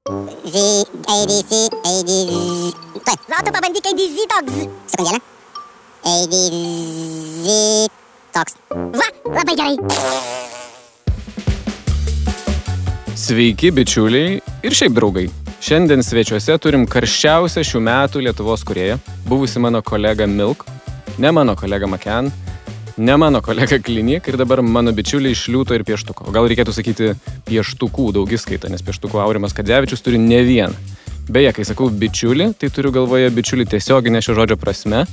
Tuoj, Zautu pabandyk ADZ toks. Sekundėlę. ADZ toks. Va, labai gerai. Sveiki, bičiuliai ir šiaip draugai. Šiandien svečiuose turim karščiausią šių metų Lietuvos kūrėją, buvusi mano kolega Milk, ne mano kolega Maken, ne mano kolega Klinik ir dabar mano bičiuliai iš Liūto ir Pieštuko. O gal reikėtų sakyti Pieštukų daugiskaita, nes Pieštukų Aurimas Kadzevičius turi ne vieną. Beje, kai sakau bičiulį, tai turiu galvoje bičiulį tiesioginė šio žodžio prasme,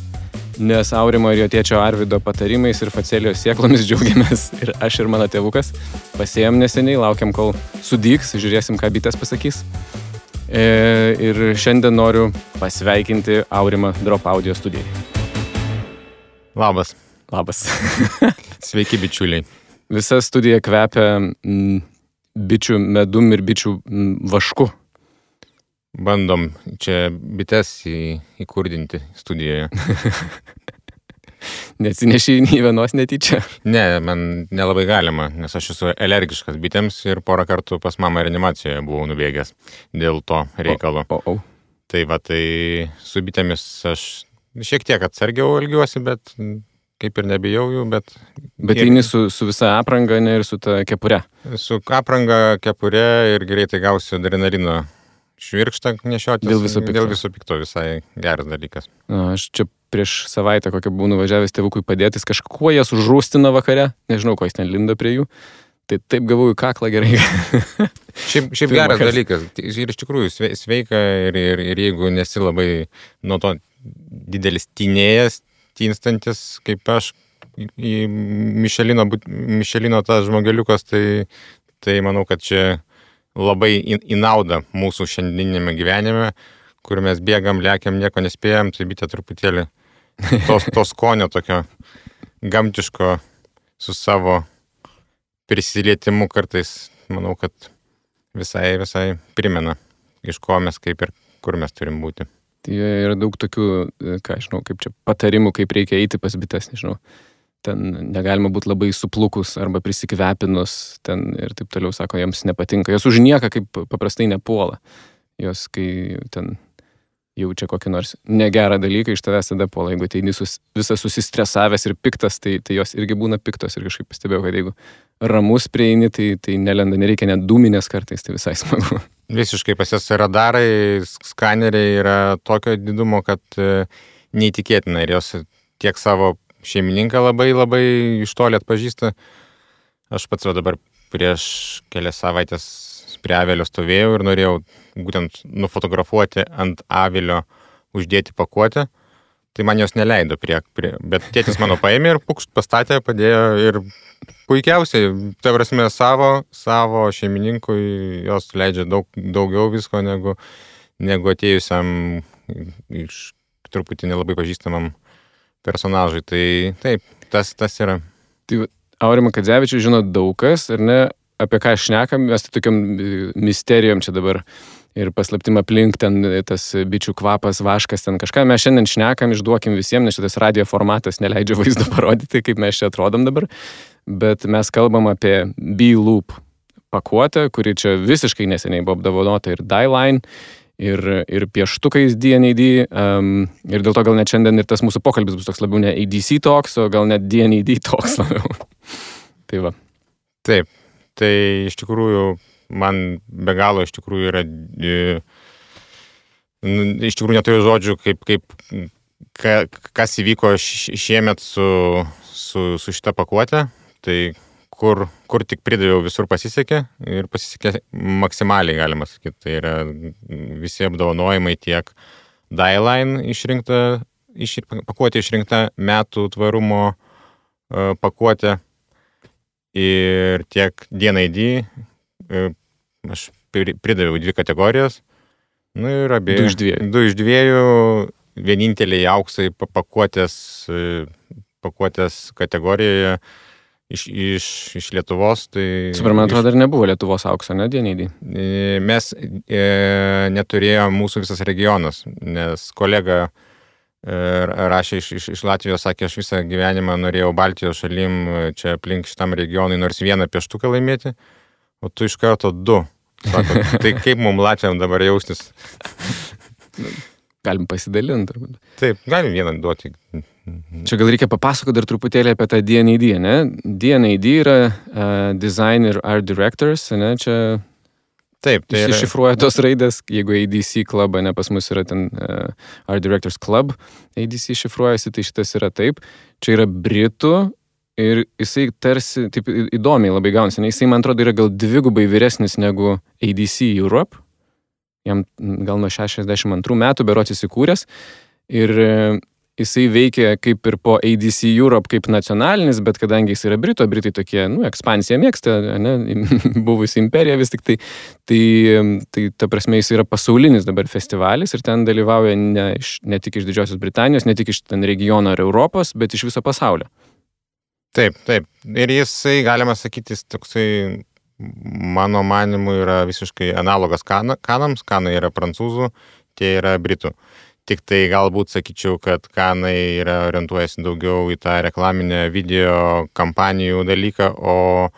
nes Aurimo ir jo tėčio Arvido patarimais ir facelijos sėklomis džiaugiamės ir aš ir mano tėvukas. Pasėjom neseniai, laukiam kol sudygs, žiūrėsim, ką bitės pasakys. Ir šiandien noriu pasveikinti Aurimą Drop Audio studijai. Labas. Labas. Sveiki, bičiuliai. Visa studija kvepia bičių medum ir bičių vašku. Bandom čia bites įkurdinti studijoje. Neatsinešiai nei vienos netyčia? Ne, man nelabai galima, nes aš esu alergiškas bitėms ir porą kartų pas mamą reanimacijoje buvau nubėgęs dėl to reikalo. Tai va, tai su bitėmis aš šiek tiek atsargiau elgiuosi, bet kaip ir nebijau jų, bet... Bet eini su visa apranga, ne ir su ta kepure? Su apranga, kepure ir greitai gausiu adrenalino švirkštą nešiotis. Dėl viso pikto visai geras dalykas. Aš čia prieš savaitę kokią buvau nuvažiavęs tėvukui padėtis, kažkuo jas užrūstina vakare, nežinau, ko jis ten lindo prie jų, tai taip gavau į kaklą gerai. Šiaip geras dalykas ir iš tikrųjų sveika ir jeigu nesi labai nuo to didelis tynėjas, tynstantis kaip aš į Mišelino tas žmogeliukas, tai manau, kad čia labai į naudą mūsų šiandieninėme gyvenime, kur mes bėgam, lekiam, nieko nespėjam, tai bitė truputėlį to skonio tokio gamtiško su savo prisilietimu kartais, manau, kad visai primena, iš ko mes kaip ir kur mes turim būti. Tai yra daug tokių, ką žinau, kaip čia patarimų, kaip reikia eiti pas bites, nežinau. Ten negalima būti labai suplukus arba prisikvepinus, ten ir taip toliau, sako, jiems nepatinka. Jos už nieką kaip paprastai nepuola. Jos, kai ten jaučia kokį nors negerą dalyką, iš tavęs tada puola. Jeigu ateini visas susistresavęs ir piktas, tai jos irgi būna piktos. Ir kažkaip pastebėjau, kad jeigu ramus prieini, tai nelenda, nereikia net dūminės kartais, tai visai smagu. Visiškai pas jas radarai, skaneriai yra tokio didumo, kad neįtikėtina. Ir jos tiek savo šeimininką labai iš toli atpažįsta. Aš pats dabar prieš kelias savaitės prie avilio stovėjau ir norėjau būtent nufotografuoti ant avilio, uždėti pakuotę. Tai man jos neleido bet tėtis mano paėmė ir pukšt pastatė, padėjo ir puikiausiai, tai prasme savo šeimininkui jos leidžia daugiau visko negu atėjusiam iš truputį nelabai pažįstamam personažai. Tai taip, tas yra. Tai Aurimą Kadzevičių žino daug kas, ar ne, apie ką šnekam, mes tai tokiam misterijom čia dabar ir paslaptim aplink ten tas bičių kvapas, vaškas, ten kažką. Mes šiandien šnekam, išduokim visiems, nes šitas radio formatas neleidžia vaizdo parodyti, kaip mes čia atrodom dabar, bet mes kalbam apie B-Loop pakuotę, kuri čia visiškai neseniai buvo apdovanota ir Die-Line, ir pieštukais D&AD, ir dėl to gal net šiandien ir tas mūsų pokalbis bus toks labiau ne ADC talks, o gal net D&AD talks labiau. Tai va. Taip, tai iš tikrųjų man be galo iš tikrųjų yra, iš tikrųjų neturiu žodžių, kas įvyko šiemet su šita pakuotė, tai kur tik pridaviau, visur pasisekė ir pasisekė maksimaliai, galima sakyti. Tai yra visi apdovanojimai tiek Die-Line pakuotė išrinkta metų tvarumo pakuotė ir tiek D&AD. Aš pridaviau 2 kategorijas. Ir du iš dviejų, vieninteliai auksai pakuotės kategorijoje iš Lietuvos. Tai man atrodo, dar nebuvo Lietuvos aukso, ne, D&AD? Mes neturėjome mūsų visas regionas, nes kolega rašė iš Latvijos, sakė, aš visą gyvenimą norėjau Baltijos šalim čia aplink šitam regionui nors vieną pieštuką laimėti, o tu iš karto 2. Sako, tai kaip mums latviam dabar jaustis? Galim pasidalinti. Turbūt. Taip, galim vieną duoti. Čia gal reikia papasakoti dar truputėlį apie tą D&AD, ne? D&AD yra Design ir Art Directors, ne? Čia Taip, tai yra... iššifruoja tos raidės, jeigu ADC Club, ne, pas mus yra ten Art Directors Club, ADC šifruojasi, tai šitas yra taip. Čia yra Britų ir jisai tarsi, taip įdomiai labai gaunasi, ne? Jisai, man atrodo, yra gal 2 vyresnis negu ADC Europe, jam gal nuo 62 metų berods įsikūręs ir jisai veikia kaip ir po ADC Europe kaip nacionalinis, bet kadangi jis yra Britai tokie, ekspansiją mėgsta, ne, buvusi imperija vis tik tai ta prasme jis yra pasaulinis dabar festivalis ir ten dalyvauja ne tik iš Didžiosios Britanijos, ne tik iš ten regiono ar Europos, bet iš viso pasaulio. Taip. Ir jisai, galima sakyti, toksai, mano manimu, yra visiškai analogas kanams. Kanai yra prancūzų, tie yra britų. Tik tai galbūt sakyčiau, kad kanai yra orientuojasi daugiau į tą reklaminę video kampanijų dalyką, o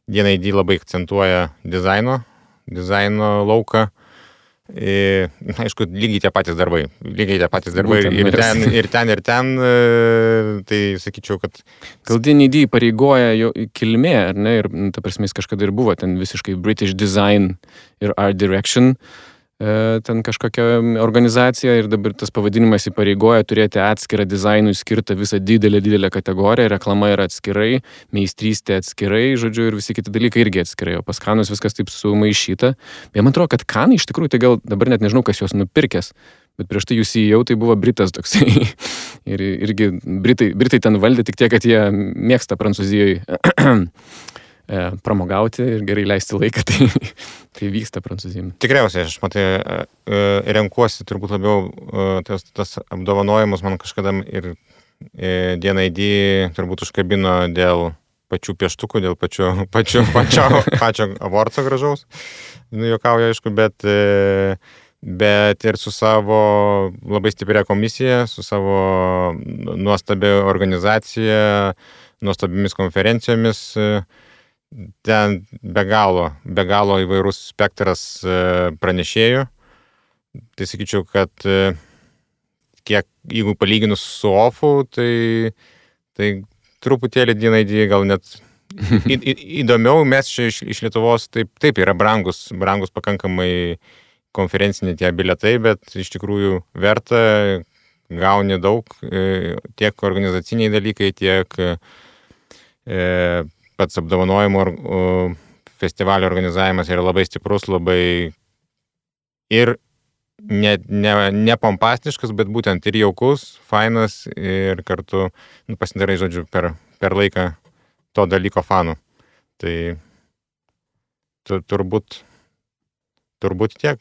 D&AD labai akcentuoja dizaino lauką. Aišku, lygiai tie patys darbai. Būtent, ir ten, tai sakyčiau, kad... Gal D&AD pareigoja jo kilmė, ar ne? Ir ta prasme, jis kažkada ir buvo ten visiškai British Design ir Art Direction, ten kažkokia organizacija ir dabar tas pavadinimas įpareigoja turėti atskirą dizainui skirtą visą didelę kategoriją, reklama yra atskirai, meistrystė atskirai, žodžiu, ir visi kiti dalykai irgi atskirai, o pas kanus viskas taip sumaišyta. Bet man atrodo, kad kanai iš tikrųjų, tai gal dabar net nežinau, kas juos nupirkęs, bet prieš tai jūs įėjau, tai buvo Britas toksai. Ir irgi Britai ten valdė tik tiek, kad jie mėgsta Prancūzijoje pramogauti ir gerai leisti laiką, tai vyksta Prancūzijoje. Tikriausiai, aš renkuosi turbūt labiau tas apdovanojimus, man kažkada ir D&AD turbūt užkabino dėl pačių pieštukų, dėl pačio avorco gražaus. Juokauju, aišku, bet ir su savo labai stipria komisija, su savo nuostabia organizacija, nuostabimis konferencijomis. Ten be galo įvairus spektras pranešėjų. Tai sakyčiau, kad jeigu palyginus su OFU, tai truputėlį D&AD gal net įdomiau. Mes čia iš Lietuvos taip yra brangus pakankamai konferenciniai tie bilietai, bet iš tikrųjų verta, gauni daug, tiek organizaciniai dalykai, tiek pats apdovanojimo festivalio organizavimas yra labai stiprus, labai ir ne pompastiškas, bet būtent ir jaukus, fainas ir kartu pasidarai, žodžiu, per laiką to dalyko fanų. Tai turbūt tiek.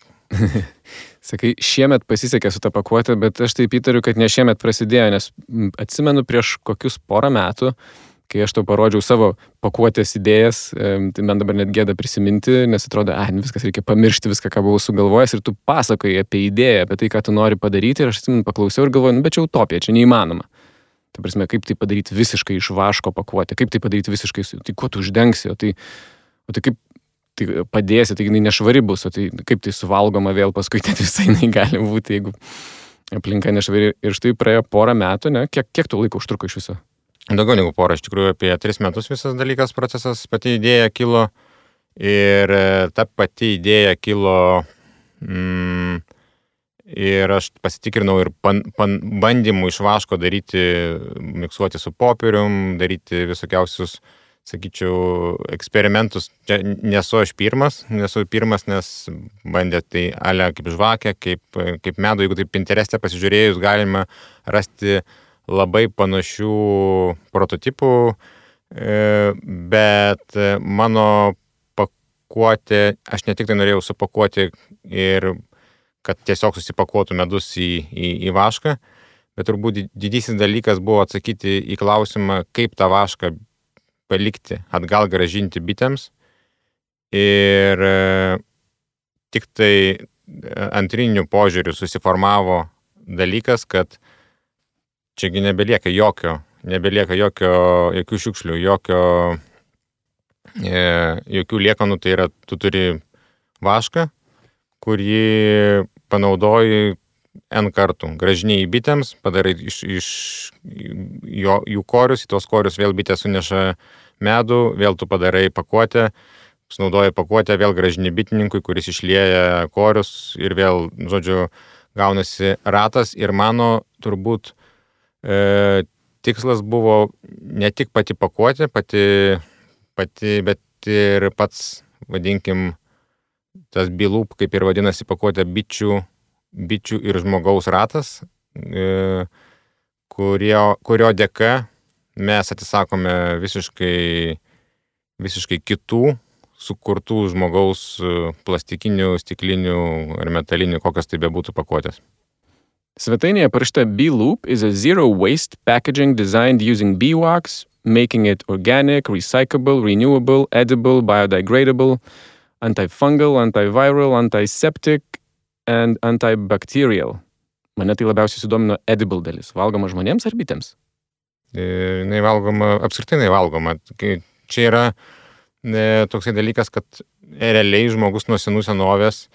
Sakai, šiemet pasisekė su ta pakuotė, bet aš taip įtariu, kad ne šiemet prasidėjo, nes atsimenu prieš kokius porą metų, kai aš tau parodžiau savo pakuotės idėjas, tai man dabar net gėda prisiminti, nes atrodo, viskas reikia pamiršti viską, ką buvau sugalvojęs ir tu pasakoji apie idėją, apie tai, ką tu nori padaryti ir aš atsimenu paklausiau ir galvoju, bet čia utopija, čia neįmanoma. Tai prasme, kaip tai padaryti visiškai iš vaško pakuotę, kaip tai padaryti visiškai, tai kuo tu uždengsi, o tai kaip tai padėsi, tai jinai nešvari bus, o tai kaip tai suvalgoma vėl paskui, tai visai jinai gali būti, jeigu aplinka nešvari. Ir štai praėjo porą metų, ne? Kiek tu laiko užtruko iš viso? Daugiau negu porą, iš tikrųjų apie 3 metus visas dalykas, procesas, pati idėja kilo ir ta pati idėja kilo ir aš pasitikrinau ir bandymų iš vaško daryti, miksuoti su popierium, daryti visokiausius, sakyčiau, eksperimentus. Čia nesu pirmas, nes bandė tai ale kaip žvakę, kaip medų, jeigu taip Pintereste pasižiūrėjus, galima rasti labai panašių prototipų, bet mano pakuotė, aš ne tik tai norėjau supakuoti ir kad tiesiog susipakuotų medus į vašką, bet turbūt didysis dalykas buvo atsakyti į klausimą, kaip tą vašką palikti, atgal grąžinti bitėms. Ir tik tai antrinių požiūrių susiformavo dalykas, kad čiagi nebelieka jokių šiukšlių, jokių liekanų, tai yra, tu turi vašką, kurį panaudoji N kartų. Gražiniai bitėms, padarai iš jų korius, į tos korius vėl bitės suneša medų, vėl tu padarai pakuotę, sunaudoji pakuotę, vėl gražini bitininkui, kuris išlieja korius ir vėl, žodžiu, gaunasi ratas. Ir mano turbūt tikslas buvo ne tik pati pakuotė, bet ir pats, vadinkim, tas B-loop, kaip ir vadinasi pakuotė, bičių ir žmogaus ratas, kurio dėka mes atsisakome visiškai kitų sukurtų žmogaus plastikinių, stiklinių ar metalinių, kokios tai bebūtų pakuotės. Svetainėje parašyta B-Loop is a zero waste packaging designed using bee-wax, making it organic, recyclable, renewable, edible, biodegradable, antifungal, antiviral, antiseptic and antibacterial. Mane tai labiausiai sudomino edible dalis. Valgoma žmonėms ar bitėms? Jinai valgoma, apskritai jinai valgoma. Čia yra toksai dalykas, kad realiai žmogus nuo senų senovės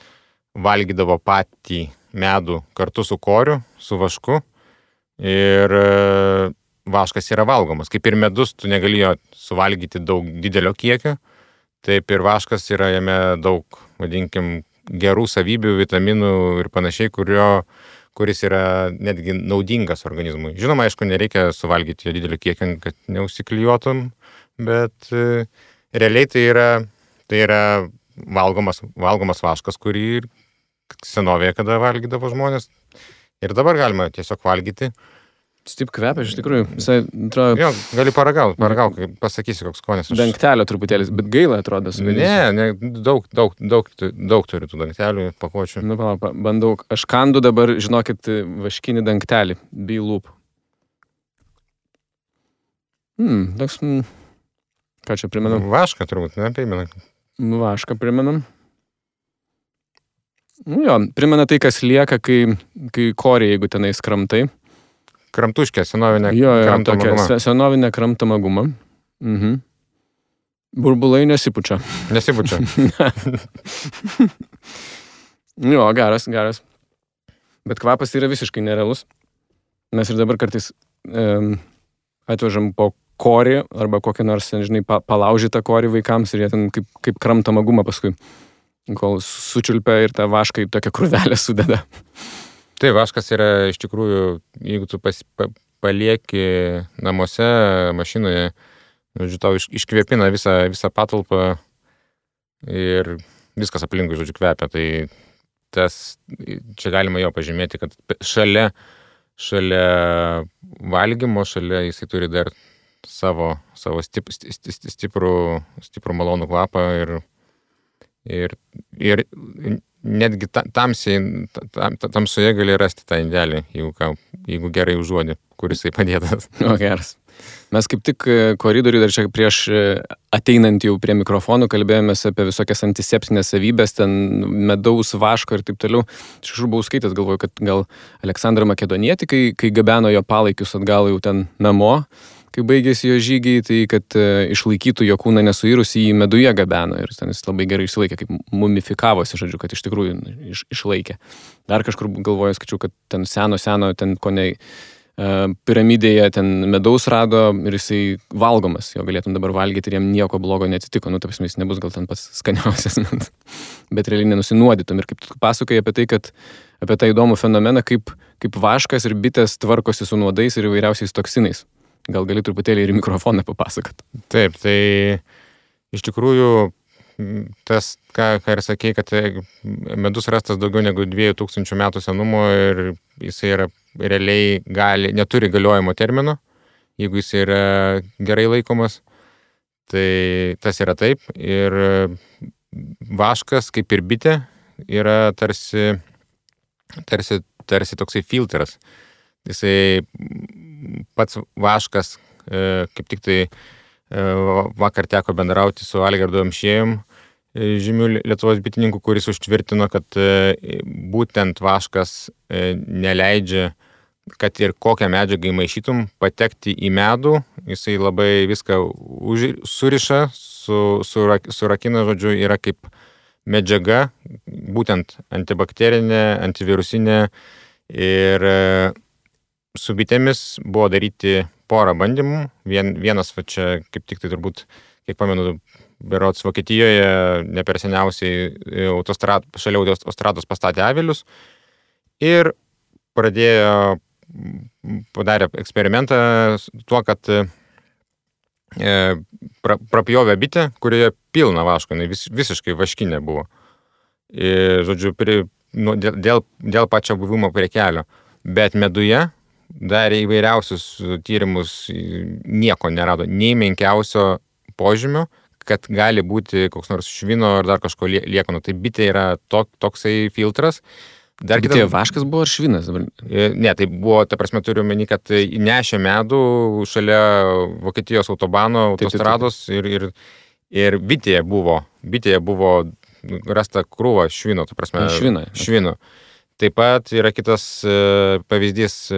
valgydavo patį medų kartu su koriu, su vašku. Ir vaškas yra valgomas. Kaip ir medus, tu negali jo suvalgyti daug didelio kiekio. Taip ir vaškas yra jame daug, vadinkim, gerų savybių, vitaminų ir panašiai, kuris yra netgi naudingas organizmui. Žinoma, aišku, nereikia suvalgyti jo didelio kiekio, kad neužsiklijuotum, bet realiai tai yra valgomas vaškas, kurį senovėje kada valgydavo žmonės. Ir dabar galima tiesiog valgyti. Taip kvepia, iš tikrųjų. Visai, atrodo... Jo, gali paragauk, pasakysi, koks skonis. Dangtelio truputėlis, bet gaila atrodo. Ne, daug turi tų dangtelių, pakuočių. Nu, bandau. Aš kandu dabar, žinokit, vaškinį dangtelį. B-Loop. Toks... Ką čia primenam? Vašką turbūt, ne? Primena. Vašką primenam. Jo, primena tai, kas lieka, kai korė, jeigu tenais kramtai. Kramtuškė, senovinė kramtama guma. Senovinė kramtama guma. Burbulai nesipučia. Nesipučia. Jo, geras. Bet kvapas yra visiškai nerealus. Mes ir dabar kartais atvežam po korį arba kokią nors, žinai, palaužytą korį vaikams ir jie ten kaip kramtama guma paskui, kol sučiulpia ir tą vašką į tokią krūvelę sudeda. Tai vaškas yra iš tikrųjų, jeigu tu palieki namuose, mašinoje, žodžiu, tau iškvėpina visą patalpą ir viskas aplinkui, žodžiu, kvepia. Tai čia galima jo pažymėti, kad šalia valgymo, šalia jisai turi dar savo stiprų malonų kvapą ir netgi tamsoje gali rasti tą indelį, jeigu gerai užuodi, kuris jisai padėtas. O, geras. Mes kaip tik koridoriui dar čia prieš ateinant jau prie mikrofonų kalbėjomės apie visokias antiseptinės savybės, ten medaus, vaško ir taip toliau. Aš buvau skaitęs, galvoju, kad gal Aleksandrą Makedonietį, kai gabeno jo palaikius atgal jau ten namo, kai baigėsi jo žygiai, tai kad išlaikytų jo kūną nesuirusį, jį meduje gabeno ir ten jis labai gerai išsilaikė, kaip mumifikavosi, žodžiu, kad iš tikrųjų išlaikė. Dar kažkur galvoju, skaičiau, kad ten seno, ten kone piramidėje ten medaus rado ir jisai valgomas, jo galėtum dabar valgyti ir jam nieko blogo neatsitiko, nu, taip jis nebus gal ten pats skaniausias, bet realiai nenusinuodytum. Ir kaip tu pasakoji apie tai, kad apie tą įdomų fenomeną, kaip vaškas ir bitės tvarkosi su nuodais ir įvairiausiais toksinais. Gal gali truputėlį ir mikrofoną papasakot. Taip, tai iš tikrųjų tas, ką ir sakei, kad medus rastas daugiau negu 2000 metų senumo ir jisai yra realiai neturi galiojimo termino, jeigu jisai yra gerai laikomas, tai tas yra taip. Ir vaškas, kaip ir bitė, yra tarsi toksai filtras. Jisai pats vaškas, kaip tik tai vakar teko bendrauti su Algirdu Amšiejum, žymių Lietuvos bitininkų, kuris užtvirtino, kad būtent vaškas neleidžia, kad ir kokią medžiagą įmaišytum, patekti į medų, jisai labai viską suriša, surakina, žodžiu, yra kaip medžiaga, būtent antibakterinė, antivirusinė ir su bitėmis buvo daryti porą bandymų. Vienas, va čia kaip tik tai turbūt, kiek pamenu, berods Vokietijoje ne per seniausiai šalia autostrados pastatė avilius ir padarė eksperimentą tuo, kad prapjovė bitę, kurioje pilna vaško, visiškai vaškinė buvo. Ir, žodžiu, dėl pačio buvimo prie kelio. Bet meduje darė įvairiausius tyrimus, nieko nerado, nei menkiausio požymio, kad gali būti koks nors švino ar dar kažko liekanų. Tai bitė yra toksai filtras. Bitė vaškas buvo ar švinas? Ne, tai buvo, ta prasme, turiu meni, kad nešė medų šalia Vokietijos autobano, autostrados ir bitėje buvo rasta krūva švino, ta prasme, švino. Taip pat yra kitas pavyzdys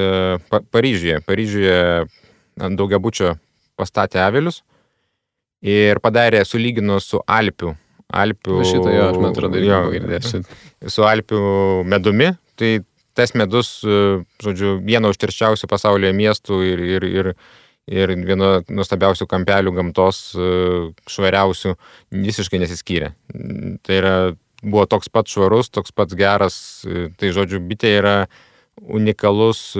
Paryžiuje. Paryžiuje ant daugiabučio pastatė avilius ir padarė, sulygino su Alpių. Šitą jo, aš man atrodo, girdėjęs. Su Alpių medumi. Tai tas medus, žodžiu, vieno užterščiausių pasaulyje miestų ir vieno nuostabiausių kampelių gamtos, švariausių, visiškai nesiskyrė. Tai buvo toks pat švarus, toks pats geras. Tai, žodžiu, bitė yra unikalus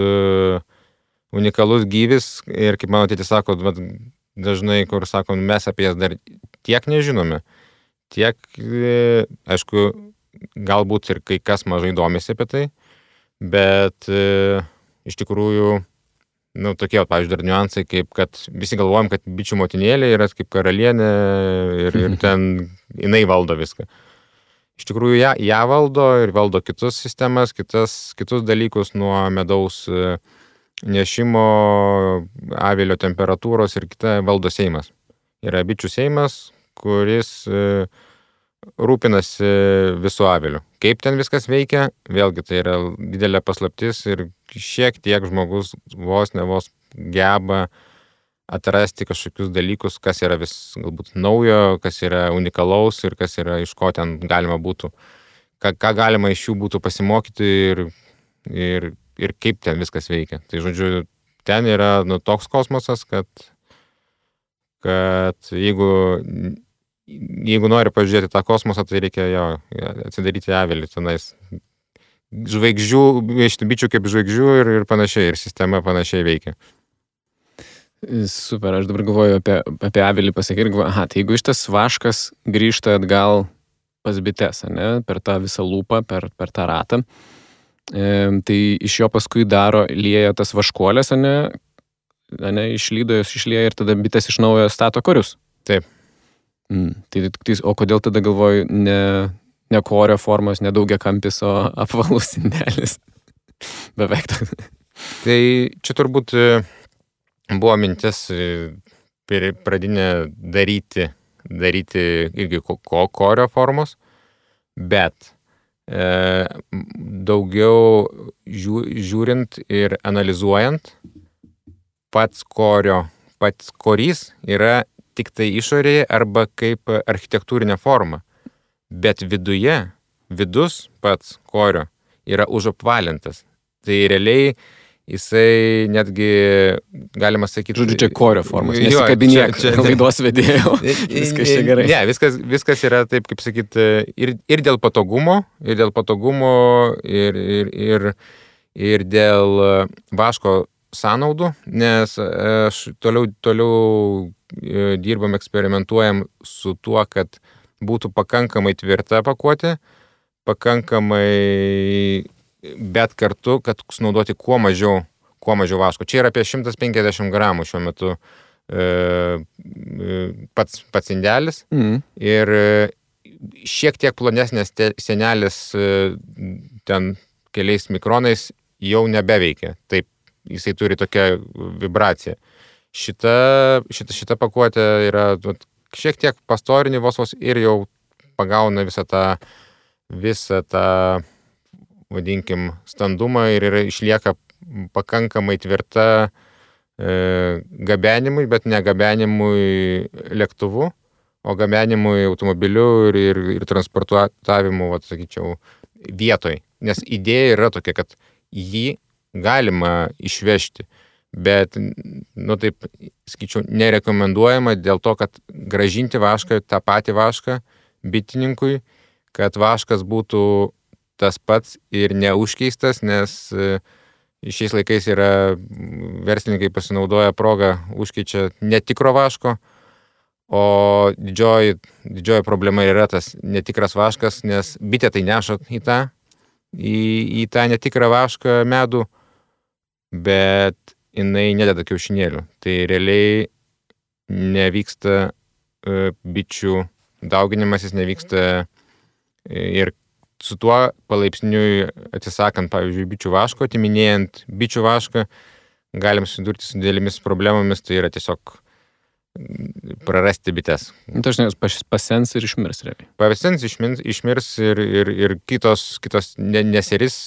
gyvis ir, kaip mano tėtis sako, dažnai, kur sakom, mes apie jas dar tiek nežinome. Tiek, aišku, galbūt ir kai kas mažai domisi apie tai, bet iš tikrųjų, tokie, pavyzdžiui, dar niuansai, kaip kad visi galvojam, kad bičių motinėlė yra kaip karalienė ir ten jinai valdo viską. Iš tikrųjų, ją valdo ir valdo kitus sistemas, kitus dalykus nuo medaus nešimo, avilio temperatūros ir kita valdo seimas. Yra bičių seimas, kuris rūpinasi visų avilių. Kaip ten viskas veikia, vėlgi tai yra didelė paslaptis ir šiek tiek žmogus vos geba atrasti kažkokius dalykus, kas yra vis galbūt naujo, kas yra unikalaus ir kas yra iš ko ten galima būtų, ką galima iš jų būtų pasimokyti ir kaip ten viskas veikia. Tai, žodžiu, ten yra toks kosmosas, kad jeigu nori pažiūrėti tą kosmosą, tai reikia atsidaryti avilį tenais. Žvaigždžių, bičių kaip žvaigždžių ir panašiai, ir sistema panašiai veikia. Super, aš dabar galvoju apie avilį pasakyti ir galvoju, tai jeigu šitas vaškas grįžta atgal pas bites, ne, per tą visą lūpą, per tą ratą, tai iš jo paskui lieja tas vaškuolės, išlydo jos išlieja ir tada bitės iš naujo stato korius. Taip. O kodėl tada galvoju, ne korio formos, ne daugiakampis, o apvalus indelis? Beveik toks. Tai čia turbūt buvo mintis pradinė daryti irgi korio formos, bet daugiau žiūrint ir analizuojant, pats korys yra tik tai išorėje arba kaip architektūrinė forma, bet vidus pats korio yra užapvalintas. Tai realiai jisai netgi, galima sakyti... Žodžiu, čia korio formos, nesikabinėk laidos vedėjo. Viskas čia gerai. Ne, viskas yra taip, kaip sakyti, ir dėl patogumo, ir dėl vaško sąnaudų, nes toliau dirbam, eksperimentuojam su tuo, kad būtų pakankamai tvirta pakuotė, bet kartu, kad sunaudoti kuo mažiau vaško. Čia yra apie 150 gramų šiuo metu pats indelis ir šiek tiek plonesnės sienelės ten keliais mikronais jau nebeveikia. Taip, jisai turi tokią vibraciją. Šita pakuotė yra šiek tiek pastorinį vos ir jau pagauna visą tą vadinkim, standumą ir išlieka pakankamai tvirta gabenimui, bet ne gabenimui lėktuvu, o gabenimui automobiliu ir transportavimu, sakyčiau, vietoj. Nes idėja yra tokia, kad jį galima išvežti, bet, taip, sakyčiau, nerekomenduojama dėl to, kad grąžinti vašką, tą patį vašką bitininkui, kad vaškas būtų tas pats ir neužkeistas, nes šiais laikais yra verslininkai pasinaudoja progą, užkeičia netikro vaško, o didžioji problema yra tas netikras vaškas, nes bitė tai neša į tą netikrą vašką medų, bet jinai nededa kiaušinėlių. Tai realiai nevyksta bičių dauginimasis, nevyksta ir su tuo palaipsniui atsisakant, pavyzdžiui, bičių vaško, atiminėjant bičių vašką, galim susidurti su didelėmis problemomis, tai yra tiesiog prarasti bites. Dažnai jos pasens ir išmirs realiai. Pasens, išmirs ir kitos neseris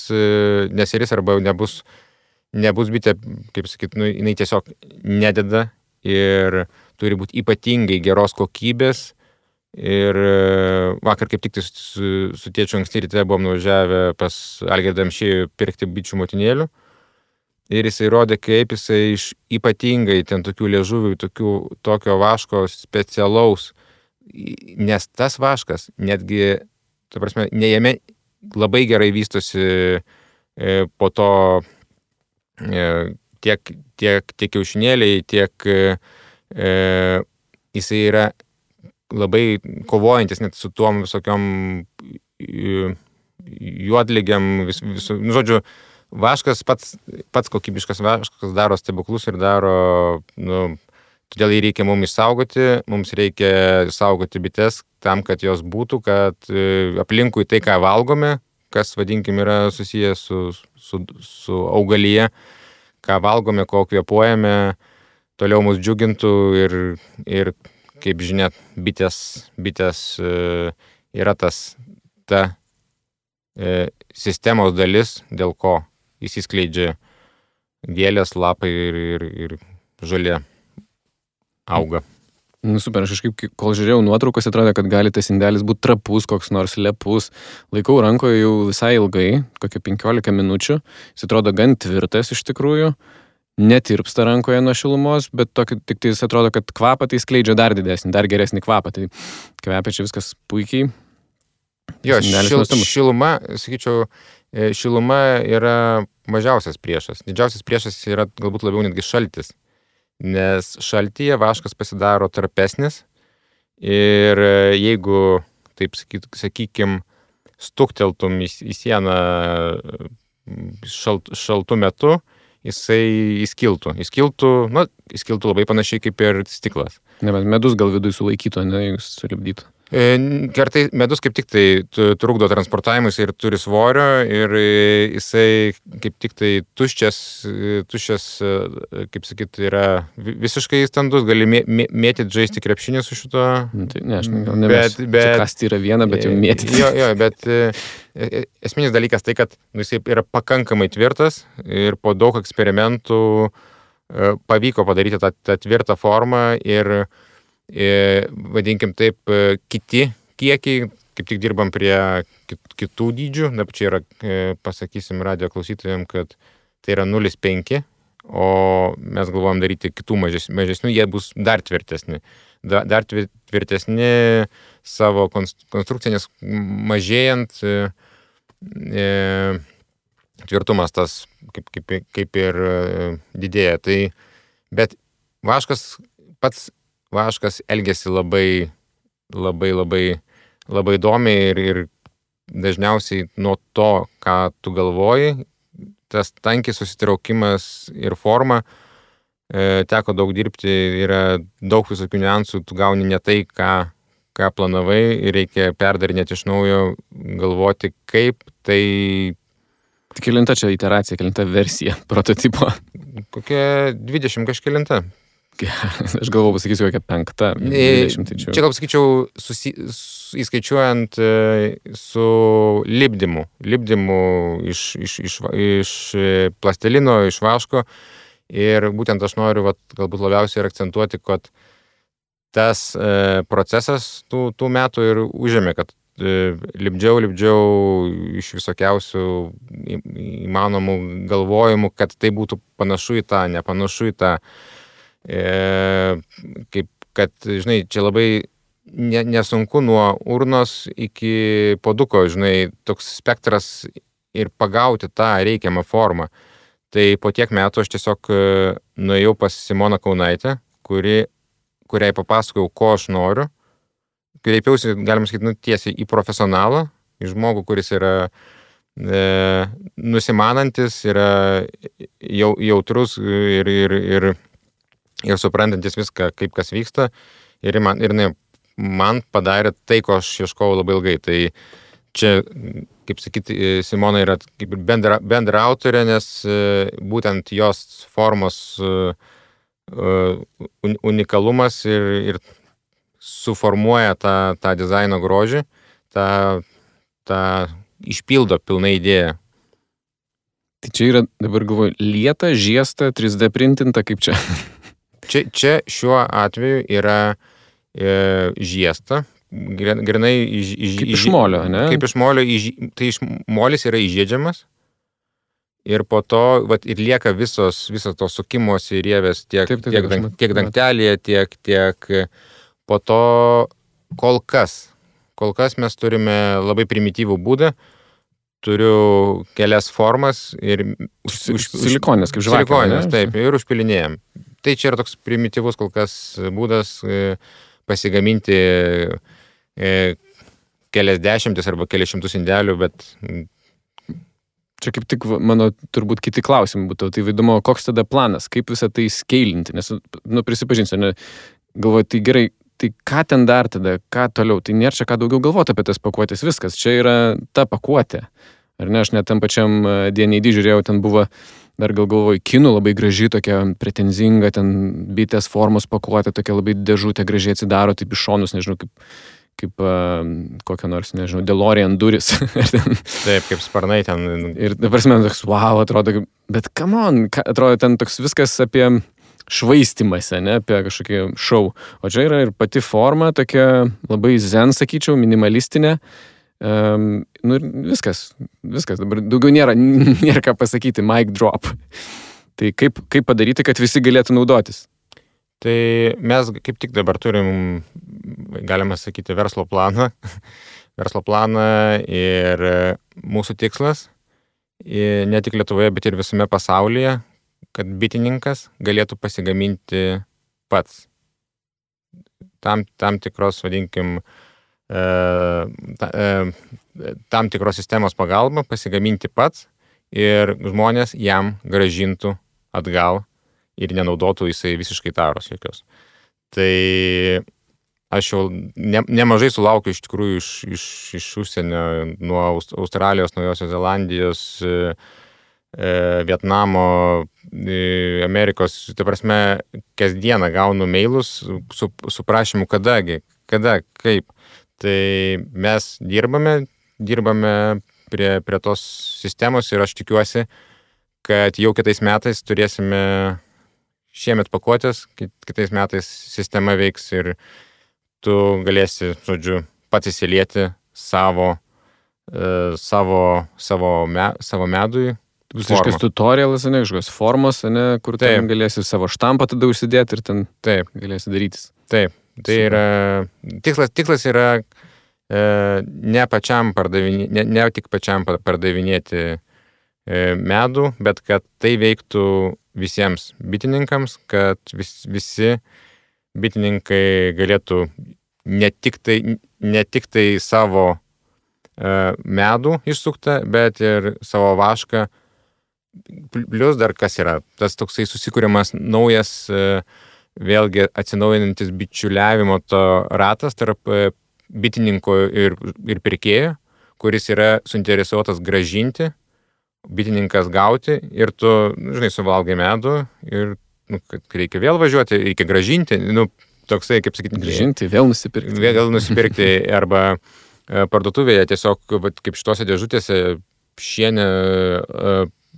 arba nebus bitė, kaip sakyt, jinai tiesiog nededa ir turi būti ypatingai geros kokybės. Ir vakar kaip tik su tėčiu anksti ryte buvom nuvažiavę pas Algirdą Amšiejų pirkti bičių motinėlių. Ir jisai rodė, kaip jisai iš ypatingai ten tokių liežuvių, tokio vaško specialaus, nes tas vaškas netgi, ta prasme, ne jame labai gerai vystosi po to tiek kiaušinėliai, tiek jisai yra labai kovojantis net su tuom visokiom juodligėm, žodžiu, vaškas, pats kokybiškas vaškas daro stebuklus ir daro, todėl jį reikia mums išsaugoti, mums reikia saugoti bites tam, kad jos būtų, kad aplinkui tai, ką valgome, kas, vadinkim, yra susijęs su augalyje, ką valgome, ko kvėpuojame, toliau mus džiugintų ir kaip žinia, bitės yra ta sistemos dalis, dėl ko įsiskleidžia gėlės, lapai ir žolė auga. Super, aš kažkaip, kol žiūrėjau nuotraukas, atrodo, kad gali tas indelis būti trapus, koks nors lepus. Laikau rankoje jau visai ilgai, kokią 15 minučių. Jis atrodo gan tvirtas iš tikrųjų. Netirpsta rankoje nuo šilumos, bet tik tai jis atrodo, kad kvapą tai skleidžia dar didesnį, dar geresnį kvapą. Tai kvepia čia viskas puikiai. Jo, šiluma, sakyčiau, šiluma yra mažiausias priešas. Didžiausias priešas yra galbūt labiau netgi šaltis. Nes šaltyje vaškas pasidaro tarpesnis ir jeigu, taip sakykim, stukteltum į sieną šaltų metu, jisai įskiltų. Įskiltų labai panašiai kaip ir stiklas. Ne, bet medus gal vidui sulaikytų, ne, jeigu sulipdytų. Kartai medus kaip tik tai trukdo transportavimus ir turi svorio ir jisai kaip tik tai tuščias, kaip sakyt, yra visiškai standus, gali mėtyti, žaisti krepšinį su šito. Tai ne, aš gal nebesiu. Kasti yra viena, bet jau mėtyti. Jo, bet esminis dalykas tai, kad jisai yra pakankamai tvirtas ir po daug eksperimentų pavyko padaryti tą tvirtą formą ir vadinkim taip, kiti kiekiai, kaip tik dirbam prie kitų dydžių, dabar čia yra, pasakysim radio klausytojams, kad tai yra 0,5, o mes galvojam daryti kitų mažesnių, jie bus dar tvirtesni. Dar tvirtesni savo konstrukciją, nes mažėjant tvirtumas tas kaip ir didėja. Tai, bet vaškas elgiasi labai įdomiai ir dažniausiai nuo to, ką tu galvoji, tas tankis susitraukimas ir forma, teko daug dirbti, yra daug visokių niuansų, tu gauni ne tai, ką planavai ir reikia perdarinėti iš naujo, galvoti, kaip tai... Kelinta čia iteracija, kelinta versija prototipo? Kokia 20 kažkelinta. Aš galvoju, pasakysiu, kokia 5, 20. Tai čia gal pasakyčiau, įskaičiuojant su lipdymu. Lipdymu iš plastelino, iš vaško. Ir būtent aš noriu galbūt labiausiai akcentuoti, kad tas procesas tų metų ir užėmė, kad lipdžiau iš visokiausių įmanomų galvojimų, kad tai būtų panašu į tą, nepanašu į tą. Kaip, kad, žinai, čia labai nesunku nuo urnos iki puoduko, žinai, toks spektras ir pagauti tą reikiamą formą. Tai po tiek metų aš tiesiog nuėjau pas Simoną Kaunaitę, kuriai papasakojau, ko aš noriu. Kreipiausi, galima sakyti, tiesiai į profesionalą, į žmogų, kuris yra nusimanantis, yra jautrus ir suprantantis viską, kaip kas vyksta. Ir man padarė tai, ko aš ieškojau labai ilgai. Tai čia, kaip sakyti, Simona yra kaip bendra autorė, nes būtent jos formos unikalumas ir suformuoja tą dizaino grožį, tą išpildo pilnai idėją. Tai čia yra, dabar galvoju, lieta, žiesta, 3D printinta, kaip čia? Čia šiuo atveju yra žiesta, grinai kaip iš molio, ne? Kaip iš molio, tai molis yra įžiedžiamas ir po to ir lieka visos tos sukimosi rievės tiek dangtelėje, tiek po to kol kas mes turime labai primityvų būdą, turiu kelias formas ir silikonės, kaip žvakė. Silikonės, taip, ir užpilinėjam. Tai čia yra toks primityvus kol kas būdas pasigaminti kelias dešimtis arba kelias šimtus indelių, bet... Čia kaip tik mano turbūt kiti klausimai būtų. Tai įdomu, koks tada planas, kaip visą tai skeilinti, nes, prisipažinsiu, galvoju, tai gerai, tai ką ten dar tada, ką toliau, tai nėra čia ką daugiau galvoti apie tas pakuotės, viskas, čia yra ta pakuotė. Ar ne, aš net tam pačiam D&D žiūrėjau, ten buvo, dar galvoju, kinų labai graži, tokia pretenzinga, ten bitės formos pakuotė, tokia labai dėžutė gražiai atsidaro, taip iš šonus, nežinau, kaip kokia nors, nežinau, DeLorean duris. Taip, kaip sparnai ten. Ir dabar man toks, wow, atrodo, bet come on, atrodo ten toks viskas apie švaistimąsi, ne, apie kažkokį šou. O čia yra ir pati forma, tokia labai zen, sakyčiau, minimalistinė. Viskas, dabar daugiau nėra ką pasakyti, mic drop. Tai kaip padaryti, kad visi galėtų naudotis? Tai mes kaip tik dabar turim, galima sakyti, verslo planą ir mūsų tikslas, ne tik Lietuvoje, bet ir visame pasaulyje, kad bitininkas galėtų pasigaminti pats. Tam tikros, vadinkim, tam tikros sistemos pagalba pasigaminti pats ir žmonės jam grąžintų atgal ir nenaudotų jisai visiškai taros jokios. Tai aš jau nemažai sulaukiu iš tikrųjų iš užsienio, nuo Australijos, Naujosios Zelandijos, Vietnamo, Amerikos, tai prasme, kasdieną gaunu mailus su prašymu kada, kaip. Tai mes dirbame prie tos sistemos ir aš tikiuosi, kad jau kitais metais turėsime šiemet pakuotės, kitais metais sistema veiks ir tu galėsi, žodžiu, pats įsilieti savo medui. Bus kažkas tutorialas, ne, kažkokios formos, ne, kur ten galėsi savo štampą tada užsidėti ir ten galėsi darytis. Taip, tai yra, tikslas yra ne tik pačiam pardavinėti medų, bet kad tai veiktų visiems bitininkams, kad visi bitininkai galėtų ne tik tai savo medų išsuktą, bet ir savo vašką. Plius dar kas yra, tas toksai susikūrimas naujas, vėlgi atsinaujinantis bičiuliavimo to ratas tarp bitininko ir pirkėjo, kuris yra suinteresuotas grąžinti, bitininkas gauti ir tu, žinai, suvalgai medų ir kad reikia vėl važiuoti, reikia grąžinti, toksai, kaip sakyti, grąžinti, vėl nusipirkti arba parduotuvėje tiesiog, kaip šitose dėžutėse šienė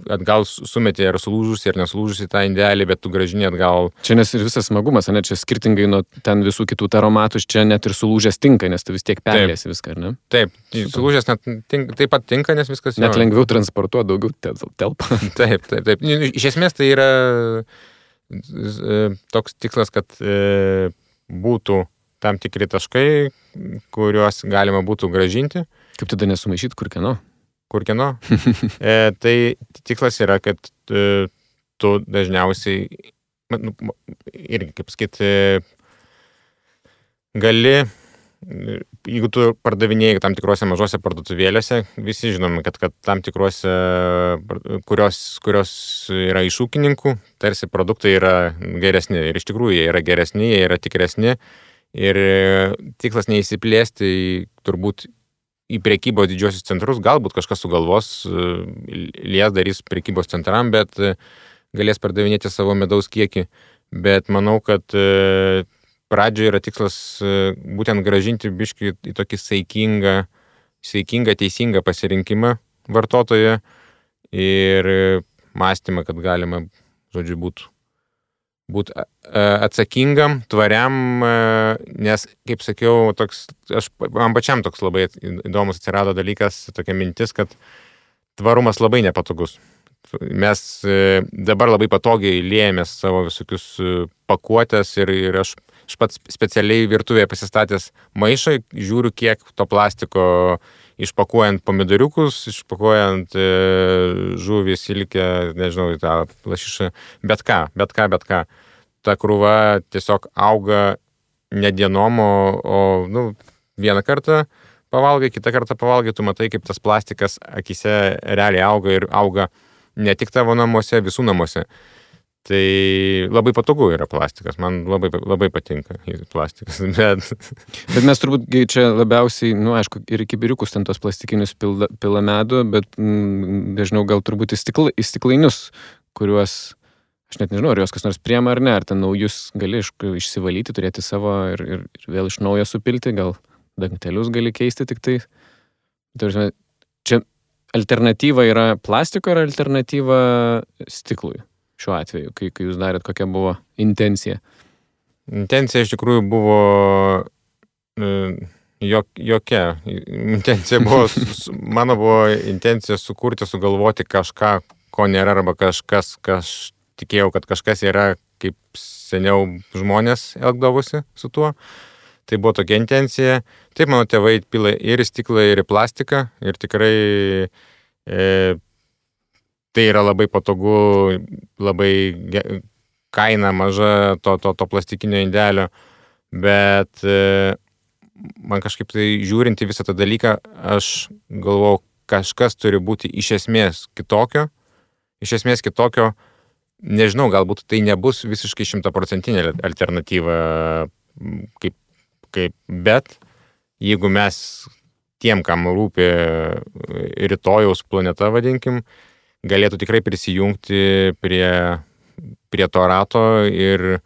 atgal sumetė ar sulūžusi, ar nesulūžusi tą indelį, bet tu gražini atgal. Čia nes ir visas smagumas, ne, čia skirtingai nuo ten visų kitų taromatų, čia net ir sulūžęs tinka, nes tu vis tiek perlėsi viską, ar ne? Taip, sulūžęs taip pat tinka, nes viskas... Net lengviau transportuoti, daugiau telpa. Taip. Iš esmės tai yra toks tikslas, kad būtų tam tikri taškai, kuriuos galima būtų gražinti. Kaip tada nesumaišyti, kur kieno? Tai tikslas yra, kad tu dažniausiai, irgi, kaip sakyti, gali, jeigu tu pardavinėjai tam tikrose mažose parduotuvėlėse, visi žinome, kad tam tikrose, kurios yra iš ūkininkų, tarsi produktai yra geresni. Ir iš tikrųjų jie yra geresni, jie yra tikresni. Ir tikslas neįsiplėsti turbūt į prekybos didžiosius centrus, galbūt kažkas sugalvos, lies darys prekybos centram, bet galės pardavinėti savo medaus kiekį. Bet manau, kad pradžioje yra tikslas būtent gražinti biškį į tokį saikingą, teisingą pasirinkimą vartotoje ir mąstymą, kad galima, žodžiu, būti atsakingam, tvariam, nes, kaip sakiau, man pačiam toks labai įdomus atsirado dalykas, tokia mintis, kad tvarumas labai nepatogus. Mes dabar labai patogiai liejamės savo visokius pakuotės ir aš pats specialiai virtuvėje pasistatęs maišą, žiūriu, kiek to plastiko išpakuojant pomidoriukus, išpakuojant žuvį, silkę, nežinau, tą lašišą, bet ką. Ta krūva tiesiog auga ne dienom, o vieną kartą pavalgai, kitą kartą pavalgai, tu matai, kaip tas plastikas akise realiai auga ir auga ne tik tavo namuose, visų namuose. Tai labai patogu yra plastikas, man labai patinka plastikas, Bet mes turbūt čia labiausiai, aišku, ir į kibiriukus ten tos plastikinius pila medų, bet dažniau gal turbūt į stiklainius, kuriuos, aš net nežinau, ar juos kas nors priema ar ne, ar ten naujus gali išsivalyti, turėti savo ir vėl iš naujo supilti, gal dangtelius gali keisti tik tai. Čia alternatyva yra plastiko ar alternatyva stiklui? Šiuo atveju, kai jūs darėt, kokia buvo intencija? Intencija iš tikrųjų buvo jokia. Mano buvo intencija sugalvoti kažką, ko nėra, arba kažkas, tikėjau, kad kažkas yra, kaip seniau žmonės elgdavosi su tuo. Tai buvo tokia intencija. Taip, mano tėvai pila ir į stiklą, ir į plastiką. Ir tikrai tai yra labai patogu, labai kaina maža to plastikinio indelio, bet man kažkaip tai žiūrint į visą tą dalyką, aš galvojau, kažkas turi būti iš esmės kitokio. Nežinau, galbūt tai nebus visiškai 100% alternatyva, bet jeigu mes tiem, kam rūpi rytojaus planeta, vadinkim, galėtų tikrai prisijungti prie to rato ir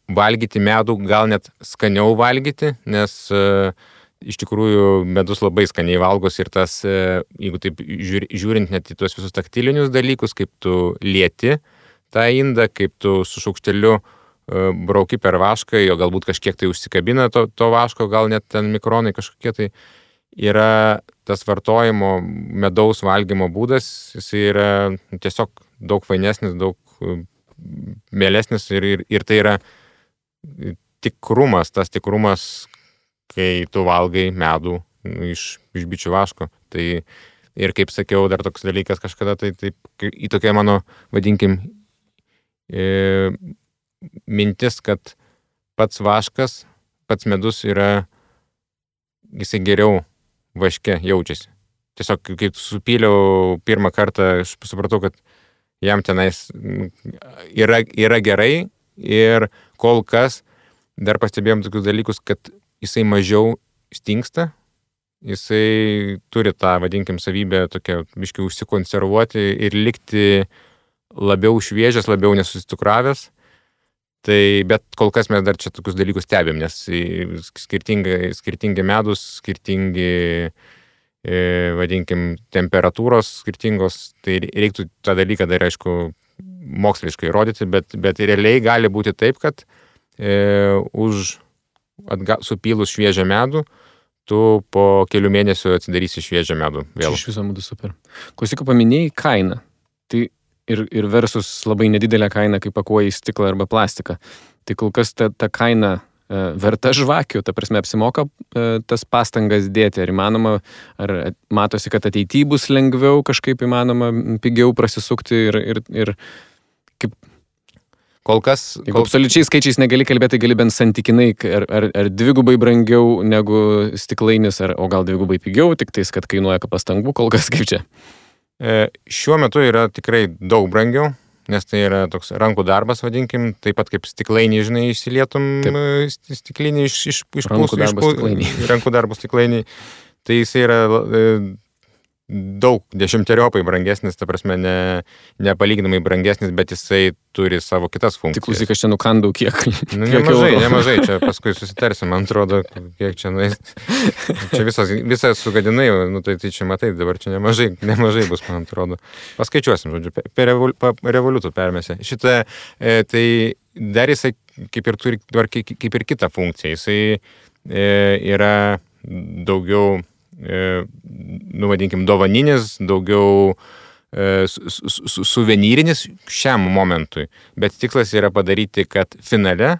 valgyti medų, gal net skaniau valgyti, nes iš tikrųjų medus labai skaniai valgos ir tas, jeigu taip žiūrint net į tuos visus taktilinius dalykus, kaip tu lieti tą indą, kaip tu su šaukšteliu brauki per vašką, jo galbūt kažkiek tai užsikabina to vaško, gal net ten mikronai kažkokie tai. Yra tas vartojimo medaus valgymo būdas, jis yra tiesiog daug fainesnis, daug mielesnis ir tai yra tikrumas, kai tu valgai medų iš bičių vaško. Tai ir kaip sakiau, dar toks dalykas kažkada, tai į tokia mano, vadinkim, mintis, kad pats vaškas, pats medus yra, jisai geriau vaške jaučiasi. Tiesiog, kai supyliau pirmą kartą, aš supratau, kad jam tenais yra gerai ir kol kas dar pastebėjom tokius dalykus, kad jisai mažiau stingsta, jisai turi tą, vadinkim, savybę tokią biškai užsikonservuoti ir likti labiau šviežias, labiau nesustukravęs. Tai, bet kol kas mes dar čia tokius dalykus stebėm, nes skirtingi medus, skirtingi vadinkim, temperatūros skirtingos, tai reiktų tą dalyką dar, aišku, moksliškai rodyti, bet realiai gali būti taip, kad supylus šviežią medų, tu po kelių mėnesių atsidarysi šviežią medų vėl. Iš viso būtų super. Klausyk, paminėjai kainą. Tai ir versus labai nedidelė kaina, kai pakuoji į stiklą arba plastiką. Tai kol kas ta kaina verta žvakių, ta prasme apsimoka tas pastangas dėti. Ar įmanoma, ar matosi, kad ateityje bus lengviau kažkaip įmanoma pigiau prasisukti ir kaip... Kol kas... Jeigu absoliučiai skaičiais negali kalbėti, gali bent santykinai, ar dvigubai brangiau negu stiklainis, o gal dvigubai pigiau, tik tais, kad kainuoja pastangų, kol kas kaip čia. Šiuo metu yra tikrai daug brangiau, nes tai yra toks rankų darbas, vadinkim, taip pat kaip stiklainį, žinai, išsilietum stiklinį iš rankų darbų stiklainį. Tai jis yra daug dešimteriopai brangesnis, ta prasme, nepalyginamai brangesnis, bet jisai turi savo kitas funkcijas. Tik klausyk, aš čia nukandau kiek. Nemažai, čia paskui susitarsim, man atrodo, kiek čia nuės. Čia visą sugadinai, tai čia matai, dabar čia nemažai bus, man atrodo. Paskaičiuosim, žodžiu, per revoliutų permėse. Šitą, tai dar jisai kaip ir turi kaip ir kitą funkciją. Jisai yra daugiau vadinkim, dovaninis, daugiau suvenyrinis šiam momentui. Bet tikslas yra padaryti, kad finale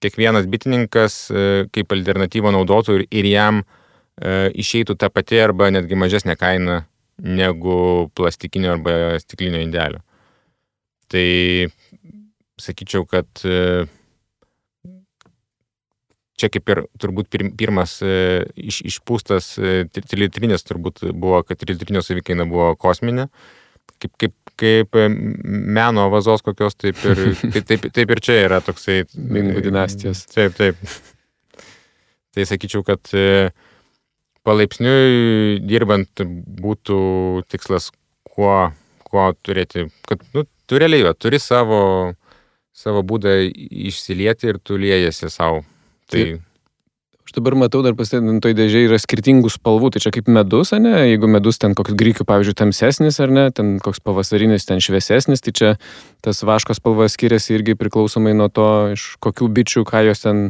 kiekvienas bitininkas kaip alternatyvą naudotų ir jam išeitų ta pati arba netgi mažesnė kaina negu plastikinio arba stiklinio indelio. Tai sakyčiau, kad čia kaip ir turbūt pirmas išpūstas trilitrinis turbūt buvo, kad trilitrinio savikaina buvo kosminė. Kaip meno vazos kokios, taip ir čia yra toksai... Mingų dinastijos. Taip. Tai sakyčiau, kad palaipsniui dirbant būtų tikslas kuo turėti, kad tu realiai turi savo būdą išsilieti ir tu liejasi savo. Tai... Aš dabar matau, dar pasitėdant, toj dėžiai yra skirtingų spalvų, tai čia kaip medus, ne? Jeigu medus ten koks grikių, pavyzdžiui, tamsesnis, ar ne, ten koks pavasarinis, ten šviesesnis, tai čia tas vaško spalva skiriasi irgi priklausomai nuo to, iš kokių bičių, ką jos ten,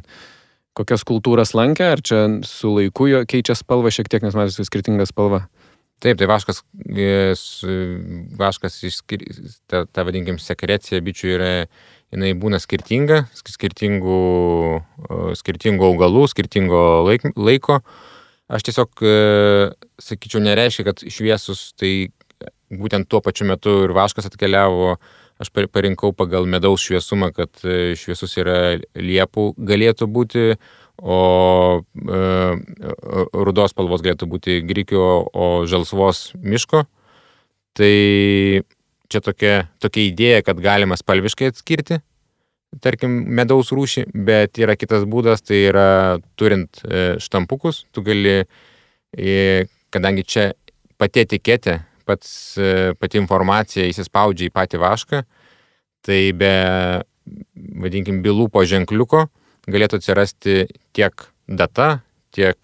kokias kultūras lankė, ar čia su laiku jo keičia spalvą šiek tiek, nes matosi skirtinga spalva. Taip, tai vaškas ta vadinkim, sekrecija bičių yra, jinai būna skirtinga, skirtingų augalų, skirtingo laiko. Aš tiesiog, sakyčiau, nereiškia, kad šviesus, tai būtent tuo pačiu metu ir vaškas atkeliavo. Aš parinkau pagal medaus šviesumą, kad šviesus yra liepų galėtų būti, o rudos spalvos galėtų būti grikio, o žalsvos miško. Tai čia tokia idėja, kad galima spalviškai atskirti, tarkim, medaus rūšį, bet yra kitas būdas, tai yra turint štampukus, tu gali, kadangi čia pati etiketė, pati informacija įsispaudžia į patį vašką, tai be, vadinkim, bylų po ženkliuko galėtų atsirasti tiek data, tiek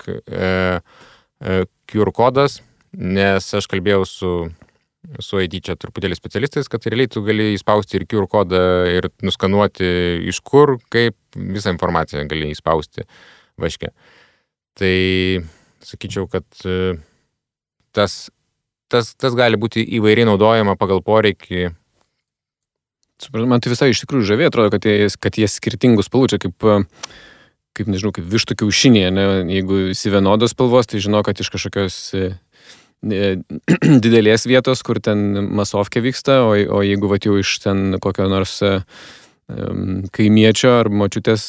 QR kodas, nes aš kalbėjau su ID čia truputėlį specialistais, kad realiai tu gali įspausti ir QR kodą ir nuskanuoti iš kur, kaip visą informaciją gali įspausti vaške. Tai sakyčiau, kad tas gali būti įvairiai naudojama pagal poreikį. Man tai visai iš tikrųjų žavė, atrodo, kad jie skirtingų spalvų, čia kaip nežinau, kaip vištų kiaušinė, ne? Jeigu esi vienodos spalvos, tai žinau, kad iš kažkokios didelės vietos, kur ten masovkė vyksta, o jeigu jau iš ten kokio nors kaimiečio ar močiutės,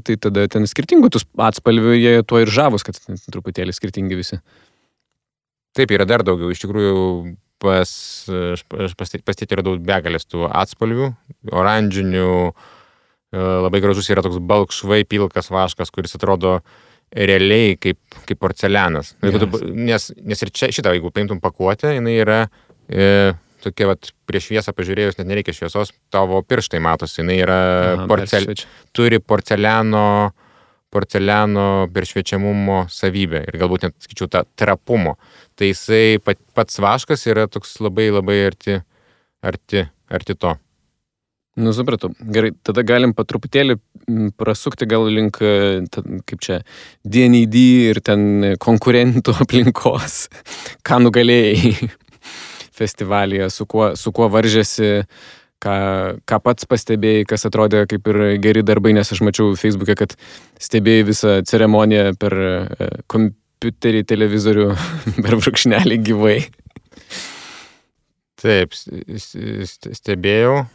tai tada ten skirtingų tų atspalvių, jie tuo ir žavus, kad truputėlį skirtingi visi. Taip, yra dar daugiau. Iš tikrųjų, pastėti yra daug begalės tų atspalvių, oranžinių, labai gražus yra toks balkšvai pilkas vaškas, kuris atrodo realiai kaip porcelianas. Yes. Nes ir čia šitą, jeigu paimtum pakuotę, jinai yra tokia, prieš šviesą pažiūrėjus, net nereikia šviesos, tavo pirštai matosi, jinai yra turi porceliano porceliano peršviečiamumo savybę ir galbūt net, sakyčiau, tą trapumo. Tai jisai pats vaškas yra toks labai arti to. Nu, supratau. Gerai, tada galim patruputėlį prasukti gal link, kaip čia, DND ir ten konkurentų aplinkos. Ką nugalėjai festivalyje, su kuo varžėsi, ką pats pastebėjai, kas atrodė kaip ir geri darbai, nes aš mačiau Facebook'e, kad stebėjai visą ceremoniją per kompiuterį, televizorių, per brūkšnelį gyvai. Taip, stebėjau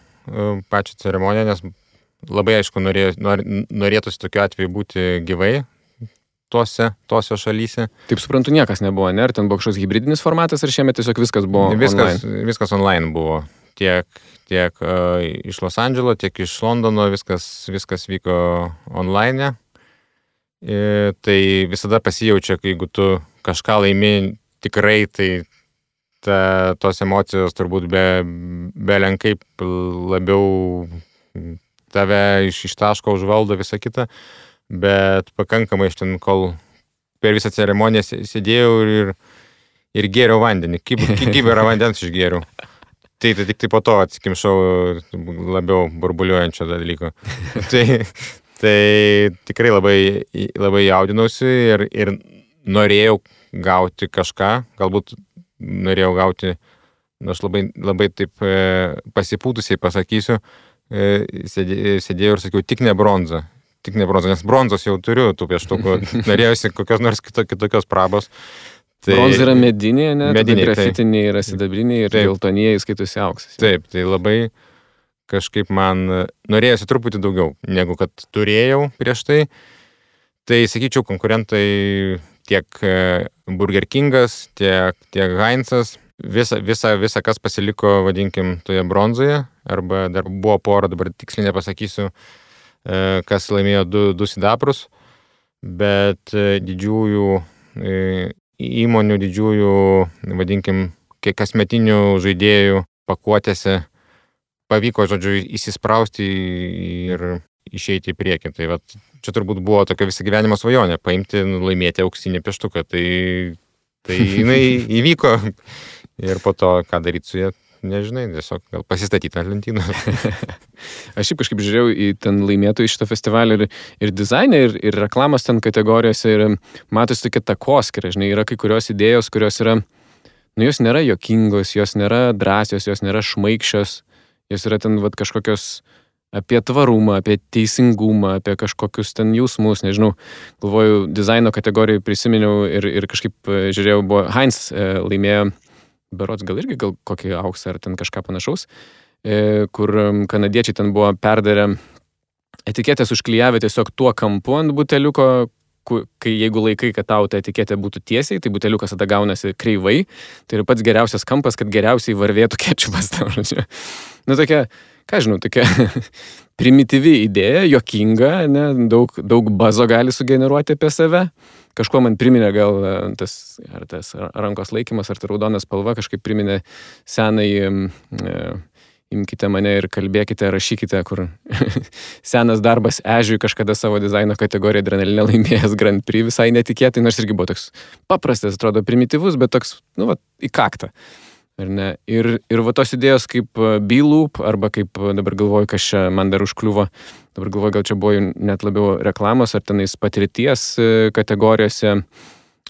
pačią ceremoniją, nes labai aišku norėtųsi tokiu atveju būti gyvai tose šalyse. Taip suprantu, niekas nebuvo, ne? Ar ten buvo kažkoks hybridinis formatas, ar šiemet tiesiog viskas buvo online? Viskas online buvo. Tiek iš Los Andželo, tiek iš Londono viskas vyko online. Tai visada pasijaučia, kai jeigu tu kažką laimi tikrai, tai tos emocijos turbūt belenkai labiau tave iš taško užvaldo visą kitą, bet pakankamai iš ten, kol per visą ceremoniją sėdėjau ir gėriau vandenį. Kibirą vandens išgėriau. Tai tik tai po to atsikimšau labiau burbuliuojančio dalyko. Tai tikrai labai jaudinausi ir norėjau gauti kažką, galbūt norėjau gauti, aš labai taip pasipūtusiai pasakysiu, sėdėjau ir sakiau, tik ne bronza, nes bronzos jau turiu tų pieštukų, norėjusi kokios nors kitokios prabos. Tai bronza yra medinė, ne? Medinė, grafitiniai yra sidabriniai ir geltonieji skaitosi auksas. Taip, tai labai kažkaip man norėjusi truputį daugiau, negu kad turėjau prieš tai. Tai, sakyčiau, konkurentai tiek Burger Kingas, tiek Heinzas, visa kas pasiliko, vadinkim, toje bronzoje, arba dar buvo pora, dabar tiksliai nepasakysiu, kas laimėjo du sidabrus, bet didžiųjų įmonių, didžiųjų, vadinkim, kasmetinių žaidėjų pakuotėse pavyko, žodžiu, įsisprausti ir išeiti į priekį. Tai vat, čia turbūt buvo tokia visą gyvenimo svajonė, paimti, laimėti auksinį pieštuką. Tai jinai įvyko ir po to, ką daryti su jie, nežinai, tiesiog gal pasistatyti ant lentynos. Aš šiaip kažkaip žiūrėjau į ten laimėtojų šitą festivalį ir dizainą, ir reklamos ten kategorijose, ir matosi tokia takoskyra, žinai, yra kai kurios idėjos, kurios yra, nu, jos nėra jokingos, jos nėra drąsios, jos nėra šmaikščios, jos yra ten vat kažkokios apie tvarumą, apie teisingumą, apie kažkokius ten jausmus, nežinau, galvoju, dizaino kategorijai prisiminiau ir kažkaip žiūrėjau, buvo Heinz laimėjo, berods gal kokį auksą ar ten kažką panašaus, kur kanadiečiai ten buvo perdarę etiketės užklijavę tiesiog tuo kampu ant buteliuko, kai jeigu laikai, kad tau ta etiketė būtų tiesiai, tai buteliukas tada gaunasi kreivai, tai yra pats geriausias kampas, kad geriausiai varvėtų kečupas. Nu, tokia, ką žinau, tokia primityvi idėja, jokinga, ne, daug bazo gali sugeneruoti apie save. Kažkuo man priminė gal tas rankos laikymas, ar ta raudona spalva, kažkaip priminė senai imkite mane ir kalbėkite, rašykite, kur senas darbas Ežiui kažkada savo dizaino kategoriją adrenalinę laimėjęs Grand Prix visai netikėtai, nors irgi buvo toks paprastas, atrodo primityvus, bet toks, nu, va, į kaktą. Ar ne? Ir va tos idėjos kaip B-Loop, arba kaip dabar galvoju, kas čia man dar užkliuvo, dabar galvoju, gal čia buvo net labiau reklamos, ar tenais patirties kategorijose,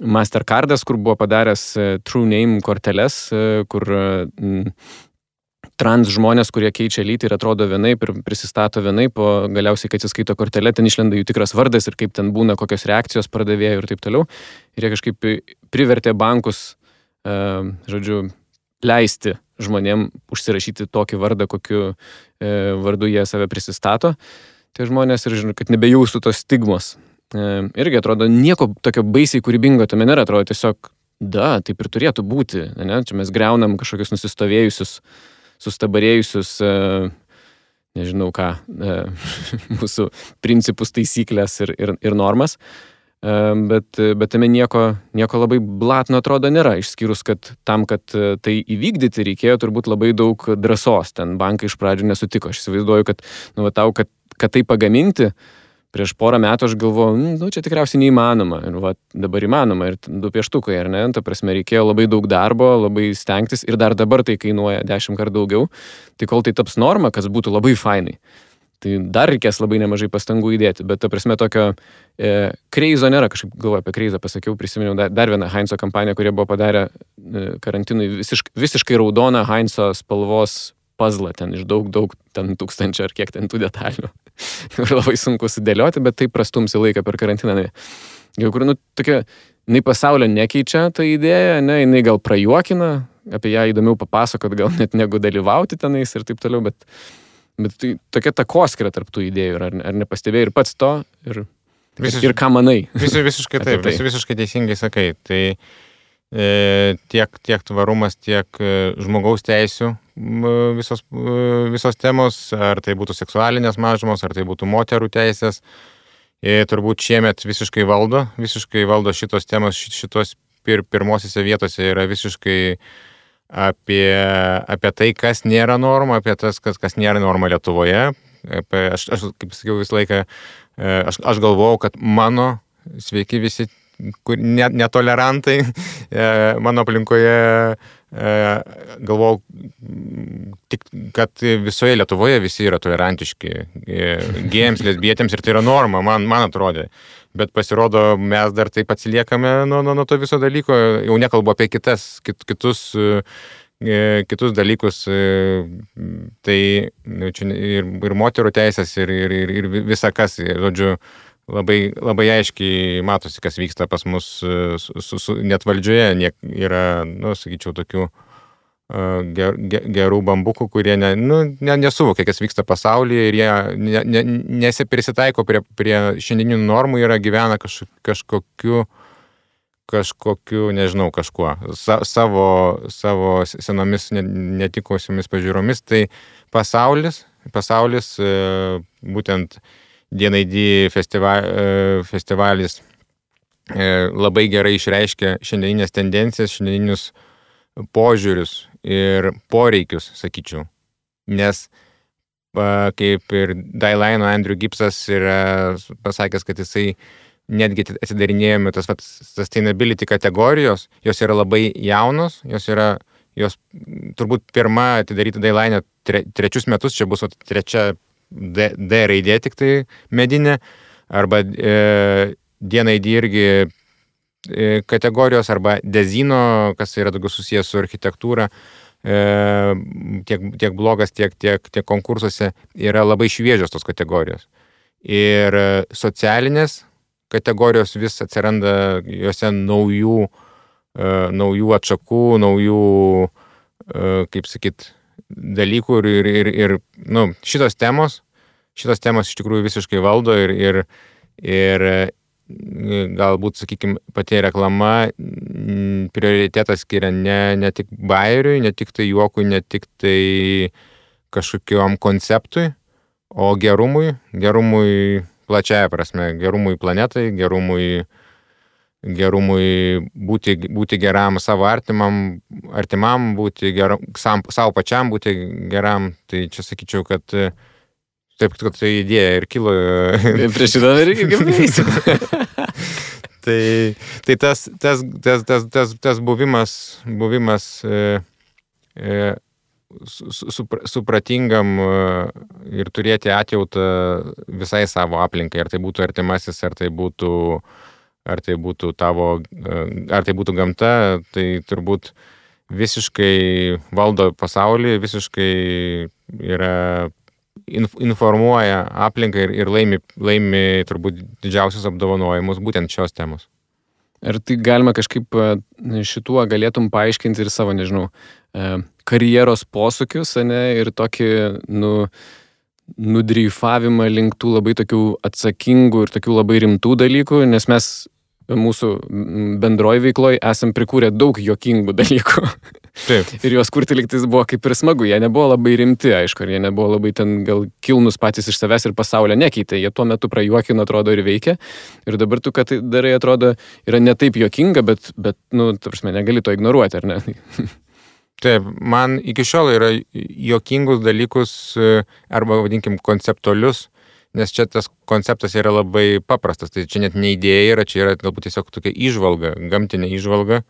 Mastercardas, kur buvo padaręs True Name korteles, kur trans žmonės, kurie keičia lytį ir atrodo vienaip ir prisistato vienaip, o galiausiai, kai atsiskaito kortelė, ten išlenda jų tikras vardas ir kaip ten būna, kokios reakcijos pardavėjų ir taip toliau. Ir jie kažkaip privertė bankus, žodžiu, leisti žmonėm užsirašyti tokį vardą, kokiu vardu jie save prisistato. Tai žmonės ir žinau, kad nebejaustų tos stigmos. Irgi atrodo, nieko tokio baisiai kūrybingo tame nėra, atrodo tiesiog, taip ir turėtų būti. Ne? Čia mes greunam kažkokius nusistovėjusius, sustabarėjusius, nežinau ką, mūsų principus, taisyklės ir normas. Bet tame nieko labai blatno atrodo nėra, išskyrus, kad tam, kad tai įvykdyti, reikėjo turbūt labai daug drąsos. Ten bankai iš pradžių nesutiko. Aš įsivaizduoju, kad, nu, tau, kad tai pagaminti, prieš porą metų aš galvojau, čia tikriausiai neįmanoma. Ir dabar įmanoma. Ir 2 pieštukai, ar ne? Ta prasme, reikėjo labai daug darbo, labai stengtis. Ir dar dabar tai kainuoja 10 kartų daugiau. Tai kol tai taps norma, kas būtų labai fainai. Tai dar reikės labai nemažai pastangų įdėti. Bet ta prasme, tokio kreizo nėra. Kažkaip galvoju apie kreizą, pasakiau, prisiminiau dar vieną Heinzo kampaniją, kurie buvo padarę karantinui visiškai raudoną Heinzo spalvos puzzle, ten iš daug, ten 1000 ar kiek ten tų detalių. Ir labai sunku sudėlioti, bet tai prastumsi laiką per karantiną. Jau kur, tokia, jinai pasaulio nekeičia tą idėją, jinai gal prajuokina, apie ją įdomiau papasakot, gal net negu dalyvauti tenais ir taip toliau, bet tai tokia takoskira tarp tų idėjų, ar nepastebėjai ir pats to, ir ką manai. Visiškai taip, visiškai teisingai sakai. Tai tiek tvarumas, tiek žmogaus teisių visos temos, ar tai būtų seksualinės mažumos, ar tai būtų moterų teisės, turbūt šiemet visiškai valdo šitos temos, šitos pirmosiose vietose yra visiškai apie tai, kas nėra norma, apie tas, kas nėra norma Lietuvoje. Aš kaip sakiau, visą laiką, aš galvojau, kad mano sveiki visi netolerantai mano aplinkoje, galvojau, kad visoje Lietuvoje visi yra tolerantiški gėjams, lesbietėms ir tai yra norma, man atrodė. Bet pasirodo, mes dar taip atsiliekame nuo to viso dalyko, jau nekalbu apie kitus dalykus, tai čia ir moterų teisės, ir visa kas, žodžiu, labai aiškiai matosi, kas vyksta pas mus net valdžioje, yra, sakyčiau, tokių gerų bambukų, kurie nesuvokia, kas vyksta pasaulyje ir jie nesiprisitaiko prie šiandieninių normų, gyvena kažkokiu, nežinau, kažkuo, savo senomis netikusiomis pažiūromis. Tai pasaulis būtent DNAD festivalis labai gerai išreiškia šiandieninės tendencijas, šiandieninius požiūrius ir poreikius, sakyčiau. Nes kaip ir Dailaino Andrew Gipsas yra pasakęs, kad jisai netgi atidarinėjome tas sustainability kategorijos, jos yra labai jaunos, jos turbūt pirma atidaryta Dailaine 3 metus, čia bus 3 D raidė tik tai medinė, arba DNAD irgi kategorijos, arba dezino, kas yra daugiau susijęs su architektūra, tiek blogas, tiek konkursuose yra labai šviežios tos kategorijos. Ir socialinės kategorijos vis atsiranda juose naujų atšakų, naujų, kaip sakyt, dalykų ir šitos temos iš tikrųjų visiškai valdo ir galbūt, sakykime, pati reklama prioritetą skiria ne tik bajeriui, ne tik tai juokui, ne tik tai kažkokiam konceptui, o gerumui plačiaja prasme, gerumui planetai, gerumui būti geram savo artimam, būti geram, savo pačiam būti geram. Tai čia sakyčiau, kad taip, kad tai idėja ir kilo. Prieš šitą irgi pavysiu. Tai tas buvimas supratingam ir turėti atjautą visai savo aplinkai, ar tai būtų artimasis, ar tai būtų gamta, tai turbūt visiškai valdo pasaulį, visiškai informuoja aplinką ir laimi turbūt didžiausius apdovanojimus būtent šios temos. Ar tai galima kažkaip šituo galėtum paaiškinti ir savo, nežinau, karjeros posūkius, ir tokį, nudreifavimą link tų labai tokių atsakingų ir tokių labai rimtų dalykų, nes mes mūsų bendroj veikloj esam prikūrę daug juokingų dalykų. Taip. Ir juos kurti liktais buvo kaip ir smagu. Jie nebuvo labai rimti, aišku, ir jie nebuvo labai ten gal kilnus patys iš savęs ir pasaulio nekeitė. Jie tuo metu prajuokino, atrodo, ir veikia. Ir dabar tu, kad tai darai, atrodo, yra ne taip juokinga, bet ta prasme, negali to ignoruoti, ar ne? Taip, man iki šiol yra juokingus dalykus, arba vadinkim konceptualius, nes čia tas konceptas yra labai paprastas, tai čia net ne idėja yra, čia yra galbūt tiesiog tokia įžvalga, gamtinė įžvalga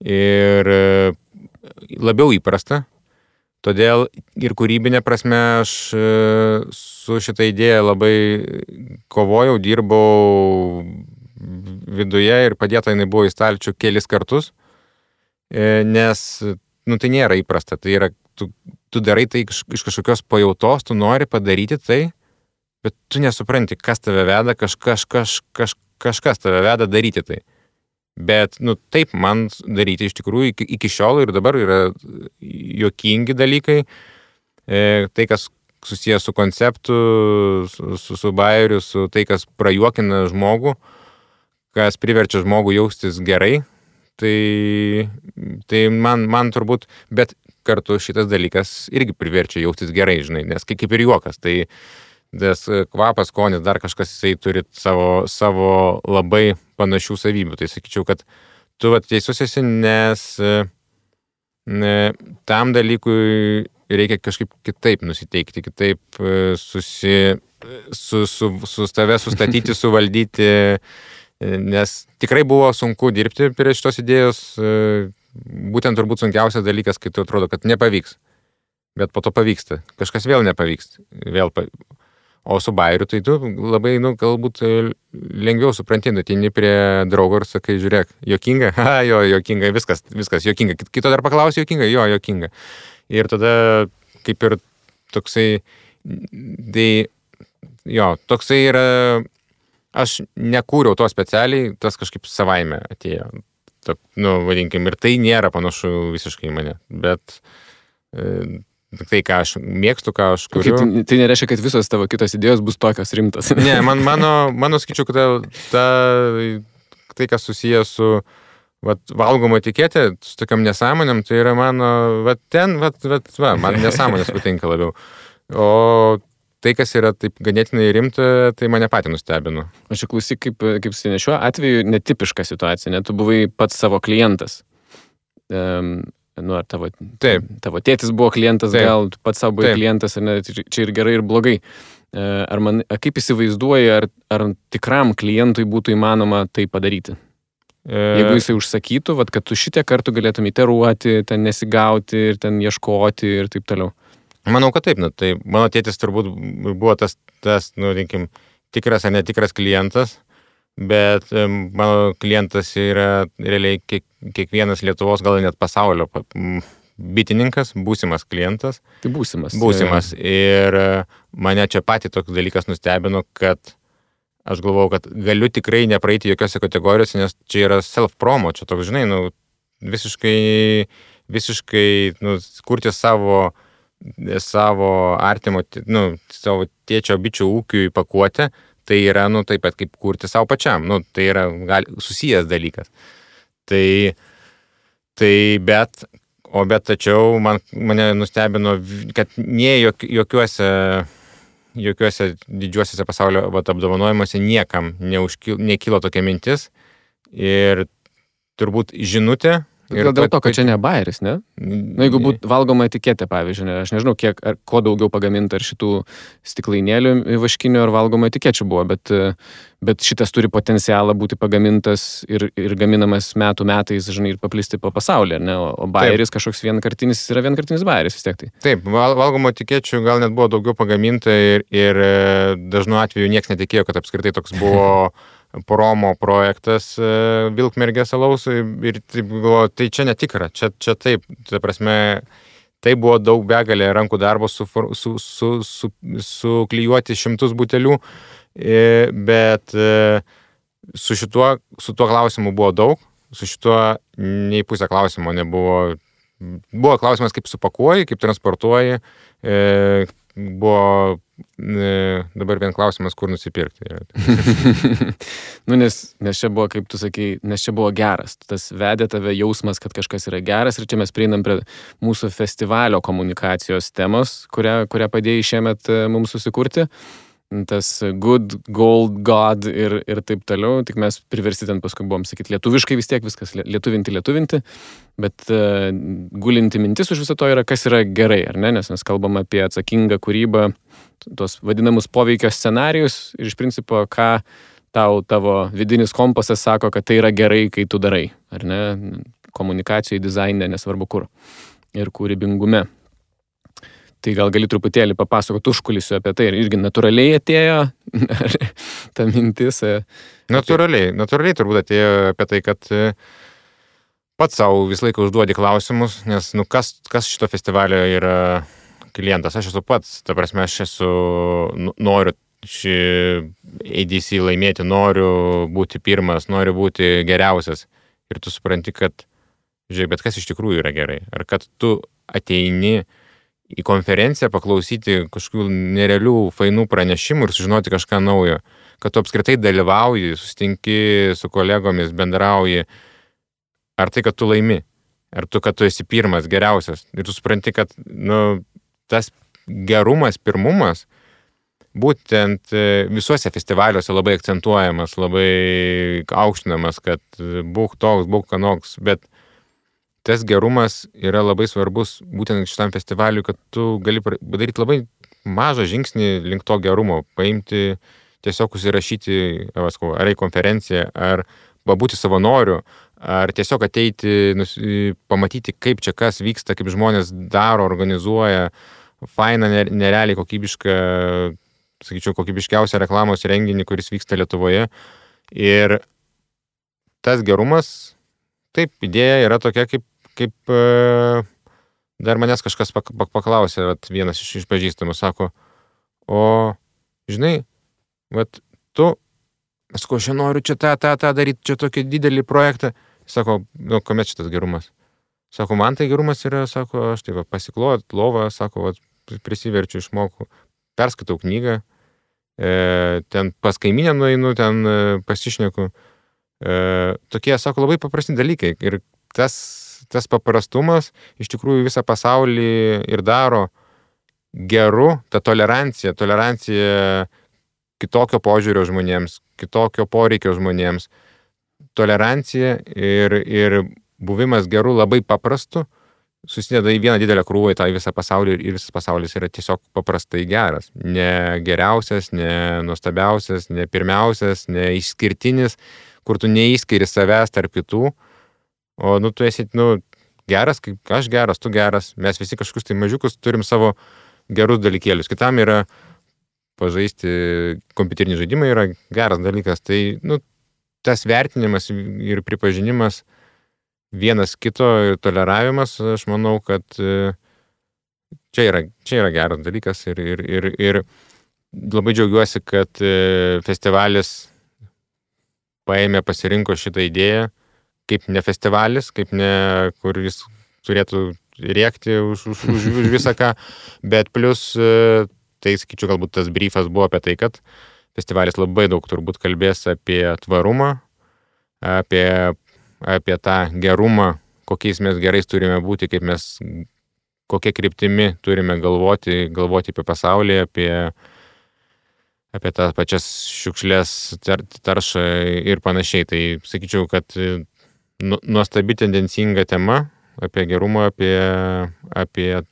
ir labiau įprasta. Todėl ir kūrybinė prasme aš su šitą idėją labai kovojau, dirbau viduje ir padėta jinai buvo į stalčių kelis kartus, nes tai nėra įprasta, tai yra, tu darai tai iš kažkokios pajautos, tu nori padaryti tai, bet tu nesupranti, kas tave veda, kažkas tave veda daryti tai. Bet, taip man daryti iš tikrųjų iki šiol ir dabar yra juokingi dalykai, tai, kas susijęs su konceptu, su bajeriu, su tai, kas prajuokina žmogų, kas priverčia žmogų jaustis gerai, tai man turbūt, bet kartu šitas dalykas irgi priverčia jaustis gerai, žinai, nes kaip ir juokas, tai tas kvapas, skonis, dar kažkas jisai turi savo labai panašių savybių. Tai sakyčiau, kad tu teisus esi, nes tam dalykui reikia kažkaip kitaip nusiteikti, kitaip su tave sustatyti, suvaldyti, nes tikrai buvo sunku dirbti prie šitos idėjos, būtent turbūt sunkiausias dalykas, kai tu atrodo, kad nepavyks, bet po to pavyksta, kažkas vėl nepavyks, o su bajeriu tai tu labai, galbūt lengviau supranti, ateini prie draugo ir sakai, žiūrėk, juokinga, jo, juokinga, viskas juokinga, kito dar paklausi juokinga, jo, juokinga. Ir tada kaip ir toksai, tai jo, toksai yra, aš nekūriau to specialiai, tas kažkaip savaime atėjo, vadinkim, ir tai nėra panašu visiškai į mane, bet tai, ką aš mėgstu, ką aš kuriu. Tai nereiškia, kad visos tavo kitos idėjos bus tokios rimtas. Ne, mano sakyčiau, kad tai, kas susijęs su valgomo etiketė, su tokiam nesąmonėm, tai yra mano, man nesąmonės patinka labiau. O tai, kas yra taip ganėtinai rimta, tai mane patį nustebino. Aš klausyk, kaip šiuo atveju netipiška situacija, tu buvai pats savo klientas. Ar tavo tėtis buvo klientas, Taip. gal tu pats savo buvai klientas, ar ne, čia ir gerai, ir blogai. Kaip įsivaizduoji, ar tikram klientui būtų įmanoma tai padaryti? Jeigu jisai užsakytų, kad tu šitiek kartų galėtum iteruoti, ten nesigauti ir ten ieškoti ir taip toliau. Manau, kad taip, tai mano tėtis turbūt buvo tas tikras ar netikras klientas, bet mano klientas yra realiai kiekvienas Lietuvos, gal net pasaulio bitininkas, būsimas klientas. Tai būsimas. Būsimas. Ir mane čia patį toks dalykas nustebino, kad aš galvojau, kad galiu tikrai nepraeiti jokiose kategorijose, nes čia yra self-promo, čia toks, žinai, visiškai kurti savo artimo, savo tėčio bičių ūkiui pakuotę, tai yra, taip pat kaip kurti savo pačiam, tai yra susijęs dalykas. Bet tačiau mane nustebino, kad nie jokiuose didžiuosiuose pasaulio apdovanojimuose niekam nekilo tokia mintis ir turbūt žinutė. Gal dėl to, kad čia ne bajeris, ne? Jeigu būtų valgoma etiketė, pavyzdžiui, aš nežinau, ko daugiau pagaminta ar šitų stiklainėlių vaškinių ar valgoma etikečių buvo, bet šitas turi potencialą būti pagamintas ir gaminamas metais, žinai, ir paplisti po pasaulį, ne? O bajeris kažkoks vienkartinis yra vienkartinis bajeris vis tiek tai. Taip, valgomo etikečių gal net buvo daugiau pagaminta ir dažnu atveju niekas netikėjo, kad apskritai toks buvo promo projektas Vilkmergės alaus ir taip galvoju, tai čia netikra, čia taip, ta prasme, tai buvo daug begalė rankų darbo suklijuoti 100 butelių, bet su tuo klausimu buvo daug, su šituo nei pusę klausimo nebuvo. Buvo klausimas, kaip supakuoji, kaip transportuoji, buvo dabar vien klausimas, kur nusipirkti. Nes čia buvo, kaip tu sakei, nes čia buvo geras. Tas vedė tave jausmas, kad kažkas yra geras ir čia mes prieinam prie mūsų festivalio komunikacijos temos, kurią padėjai šiemet mums susikurti. Tas good, gold, god ir taip toliau, tik mes priversti ten paskui buvom sakyti lietuviškai vis tiek viskas lietuvinti, bet gulinti mintis už viso to yra, kas yra gerai, ar ne, nes mes kalbam apie atsakingą kūrybą, tuos vadinamus poveikio scenarijus ir iš principo, ką tavo vidinis kompasas sako, kad tai yra gerai, kai tu darai, ar ne, komunikacijai, dizaine, nesvarbu kur, ir kūrybingume. Tai gal gali truputėlį papasakoti užkulisiu apie tai, ir irgi natūraliai atėjo ta mintis. Natūraliai turbūt atėjo apie tai, kad pats savo visą laiką užduodi klausimus, nes kas šito festivalio yra klientas. Aš esu pats, ta prasme, noriu šį ADC laimėti, noriu būti pirmas, noriu būti geriausias. Ir tu supranti, kad, žiūrėk, bet kas iš tikrųjų yra gerai. Ar kad tu ateini į konferenciją paklausyti kažkokių nerealių, fainų pranešimų ir sužinoti kažką naujo. Kad tu apskritai dalyvauji, susitinki su kolegomis, bendrauji. Ar tai, kad tu laimi? Ar kad tu esi pirmas, geriausias? Ir tu supranti, kad tas gerumas, pirmumas būtent visuose festivaliuose labai akcentuojamas, labai aukštinamas, kad būk toks, būk anoks, bet tas gerumas yra labai svarbus būtent šitam festivaliui, kad tu gali padaryti labai mažą žingsnį link to gerumo, paimti, tiesiog užsirašyti ar į konferenciją, ar pabūti savanoriu, ar tiesiog ateiti, pamatyti, kaip čia kas vyksta, kaip žmonės daro, organizuoja, fainą, nerealiai kokybišką, sakyčiau, kokybiškiausią reklamos renginį, kuris vyksta Lietuvoje. Ir tas gerumas, taip, idėja yra tokia, kaip dar manęs kažkas paklausė, vienas iš pažįstamų sako, o, žinai, tu, aš noriu čia tą daryti, čia tokį didelį projektą. Sako, kuomet šitas gerumas? Sako, man tai gerumas yra, sako, aš tai pasiklojat lovą, sako, prisiverčiu, išmoku, perskaitau knygą, ten pas kaiminę nueinu, ten pasišneku. Tokie, sako, labai paprasti dalykai. Ir tas paprastumas iš tikrųjų visą pasaulį ir daro geru, ta tolerancija kitokio požiūrio žmonėms, kitokio poreikio žmonėms. Tolerancija ir buvimas geru labai paprastu susideda į vieną didelę krūvą į tą visą pasaulį ir visas pasaulis yra tiesiog paprastai geras. Ne geriausias, ne nuostabiausias, ne pirmiausias, ne išskirtinis, kur tu neįskiri savęs tarp kitų. O, tu esi, geras, kaip aš geras, tu geras. Mes visi kažkokius tai mažiukus turim savo gerus dalykėlius. Kitam yra pažaisti kompiuterinį žaidimą yra geras dalykas. Tai, tas vertinimas ir pripažinimas vienas kito ir toleravimas, aš manau, kad čia yra geras dalykas ir labai džiaugiuosi, kad festivalis pasirinko šitą idėją kaip ne festivalis, kaip ne, kur jis turėtų rėkti už visą ką, bet plus, tai sakyčiau, galbūt tas briefas buvo apie tai, kad festivalis labai daug turbūt kalbės apie tvarumą, apie tą gerumą, kokiais mes gerais turime būti, kaip mes, kokia kryptimi turime galvoti apie pasaulį, apie tas pačias šiukšlės, taršą ir panašiai. Tai sakyčiau, kad nuostabi tendencinga tema apie gerumą, apie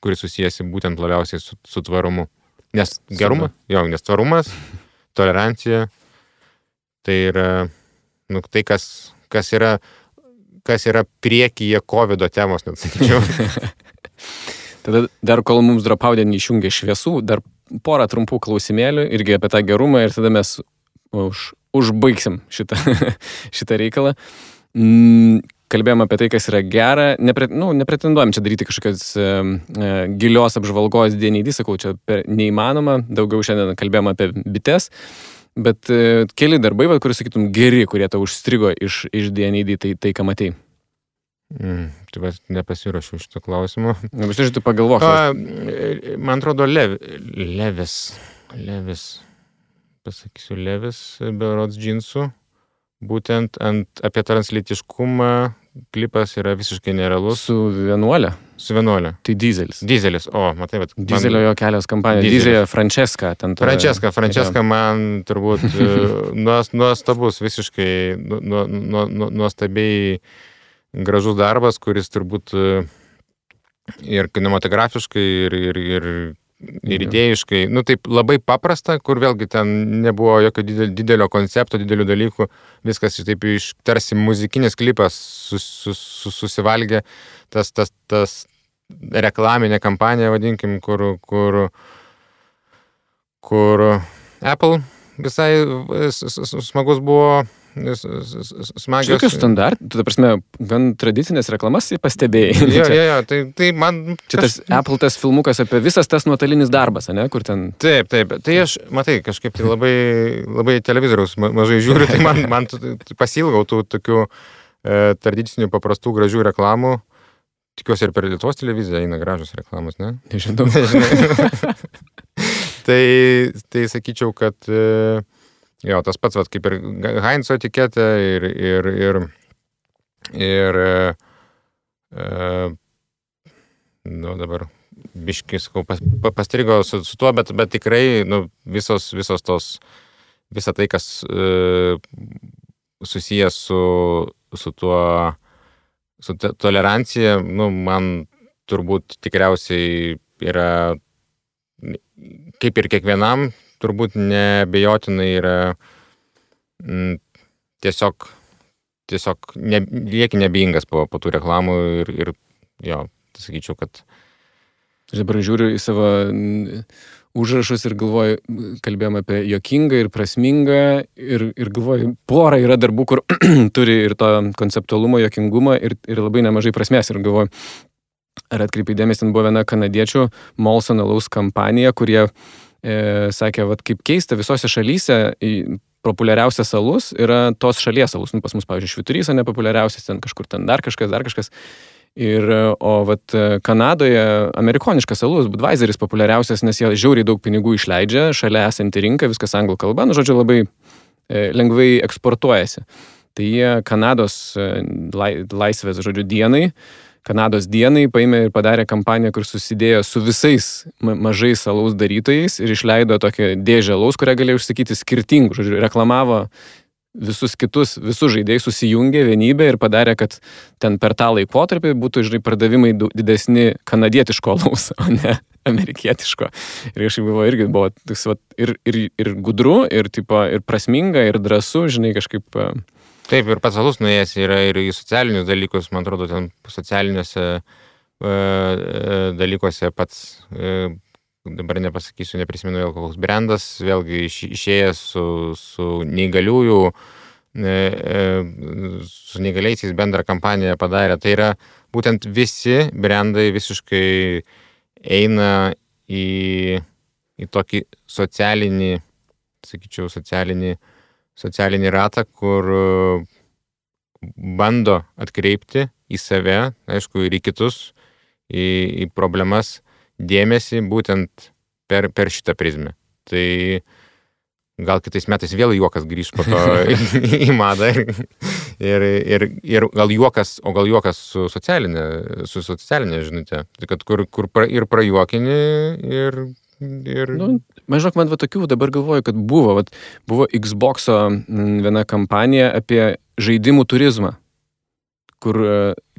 kuris susijęsi būtent labiausiai su tvarumu. Nes gerumas, nes tvarumas, tolerancija, tai yra tai, kas yra priekyje COVID temos, net sakyčiau. Tada dar kol mums Dropaudė neišjungė šviesų, dar porą trumpų klausimėlių irgi apie tą gerumą ir tada mes užbaigsim šitą reikalą. Kalbėjom apie tai, kas yra gera, nepretenduojam čia daryti kažkokios gilios apžvalgos DNID, sakau, čia neįmanoma, daugiau šiandien kalbėjom apie bites, bet keli darbai, kuris sakytum geri, kurie tau užstrigo iš DNID, tai ką matei? Tai nepasirašiau šito klausimo. Tu pagalvok. Man atrodo, Levis, pasakysiu, Levis, berods džinsų. Būtent apie translytiškumą klipas yra visiškai nerealus. Su vienuolė? Su vienuolė. Tai Dizelis. Dizelis, matai, bet... Dizelio jo kelios kampanijos. Dizelio Francesca. Francesca man turbūt nuostabus, visiškai nuostabiai gražus darbas, kuris turbūt ir kinematografiškai, ir ir idėjiškai, taip labai paprasta, kur vėlgi ten nebuvo jokio didelio koncepto, didelių dalykų, viskas taip iš tarsi muzikinis klipas susivalgė, tas reklaminė kampanija, vadinkim, kur Apple visai smagus buvo, smagios. Tokius standartų, ta prasme, gan tradicinės reklamas pastebėjai. Jo, tai man... Čia tas Apple tas filmukas apie visas tas nuotolinis darbas, ne, kur ten... Taip, tai aš, matai, kažkaip tai labai televizoriaus mažai žiūriu, tai man pasilgau tų tokių tradicinių paprastų gražių reklamų. Tikiuosi ir per Lietuvos televiziją eina gražios reklamos, ne? Nežinau. Tai sakyčiau, kad jo, tas pats, kaip ir Heinzo etiketė ir dabar biškis, pastrigo su tuo, bet tikrai, visa tai, kas susijęs su tuo, su tolerancija, man turbūt tikriausiai yra, kaip ir kiekvienam, turbūt neabejotinai yra tiesiog lieki nebeingas po tų reklamų ir jo, sakyčiau, kad... Aš dabar žiūriu į savo užrašus ir galvoju, kalbėjom apie juokingą ir prasmingą ir galvoju, pora yra darbų, kur turi ir to konceptualumo, juokingumą ir labai nemažai prasmės ir galvoju, ar atkreipai dėmesį, ten buvo viena kanadiečių Molson alaus kampanija, kurie sakė, kaip keista, visose šalyse populiariausias alus yra tos šalies alus. Pas mus, pavyzdžiui, Švyturys nepopuliariausias, ten kažkur ten dar kažkas. O Kanadoje amerikoniškas alus, Budweiseris populiariausias, nes jie žiauriai daug pinigų išleidžia, šalia esanti rinka, viskas anglų kalba, žodžiu, labai lengvai eksportuojasi. Tai jie Kanados laisvės, žodžiu, Kanados dienai paėmė ir padarė kampaniją, kur susidėjo su visais mažais alaus darytojais ir išleido tokią dėžę alaus, kurią galėjo užsakyti skirtingų, žodžiu, reklamavo visus žaidėjus, susijungė vienybę ir padarė, kad ten per tą laikotarpį būtų, žinai, pardavimai didesni kanadietiško alaus, o ne amerikietiško. Ir kažkaip buvo ir gudru, ir prasminga, ir drąsu, žinai, kažkaip... Taip, ir pats alus nuėjęs yra ir į socialinius dalykus, man atrodo, ten socialiniuose dalykuose pats, dabar nepasakysiu, neprisimenu vėl koks brandas, vėlgi išėjęs su neįgaliųjų, su neįgaliaisiais bendrą kampaniją padarė. Tai yra būtent visi brandai visiškai eina į tokį socialinį, sakyčiau, socialinį ratą, kur bando atkreipti į save, aišku, ir į kitus, į problemas dėmesį būtent per šitą prizmę. Tai gal kitais metais vėl juokas grįž po to į madą ir gal juokas su socialinė žinutė. Tai kad kur ir prajuokini ir... Maždaug man tokių dabar galvoju, kad buvo Xbox'o viena kampanija apie žaidimų turizmą, kur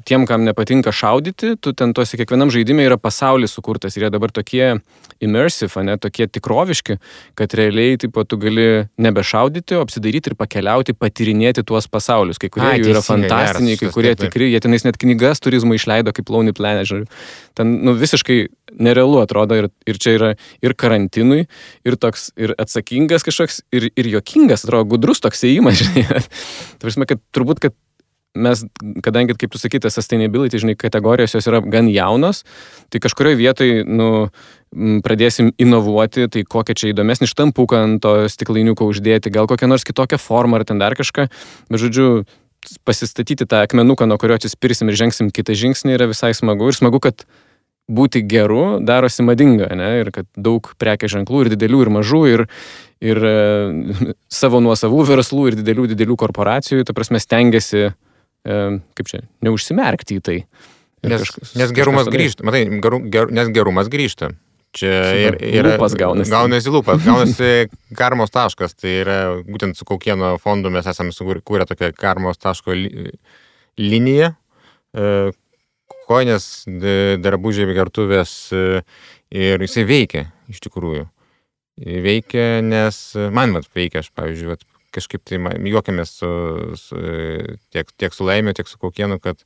tiem, kam nepatinka šaudyti, tu ten tuose kiekvienam žaidime yra pasaulis sukurtas ir jie dabar tokie immersive, tokie tikroviški, kad realiai tu gali nebešaudyti, o apsidaryti ir pakeliauti, patyrinėti tuos pasaulius. Kai kurie jų yra fantastiniai, kai kurie tikri, jie tenais net knygas turizmo išleido kaip Lonely Planet, žiūrėjau. Ten visiškai nerealu atrodo ir čia yra ir karantinui, ir toks, ir atsakingas kažkoks, ir juokingas, atrodo, gudrus toks ėjimas, žinai. Tai prasme, kad turbūt, kad mes, kadangi, kaip tu sakyti, sustainability, žinai, kategorijos jos yra gan jaunos, tai kažkurioje vietoje, pradėsim inovuoti, tai kokią čia įdomesnį štampuką ant to stiklainiuko uždėti, gal kokią nors kitokią formą ar ten dar kažką, bet žodžiu, pasistatyti tą akmenuką, nuo kurio atsispirsim ir žengsim kitą žingsnį yra visai smagu ir smagu, kad būti geru darosi madinga, ne, ir kad daug prekės ženklų ir didelių ir mažų ir savo nuosavų verslų ir didelių korporacijų, ta prasme, stengiasi kaip čia, neužsimerkti į tai. Nes gerumas grįžta, matai, nes gerumas grįžta. Čia lūpas gaunasi lūpas, gaunasi karmos taškas, tai yra būtent su Kaukieno fondu mes esame sukūrę tokią karmos taško liniją, kojinės, drabužiai, gertuvės ir jisai veikia iš tikrųjų. Veikia, nes man veikia, aš pavyzdžiui, kažkaip tai juokiamės tiek su Laimiu, tiek su Kaukienu, kad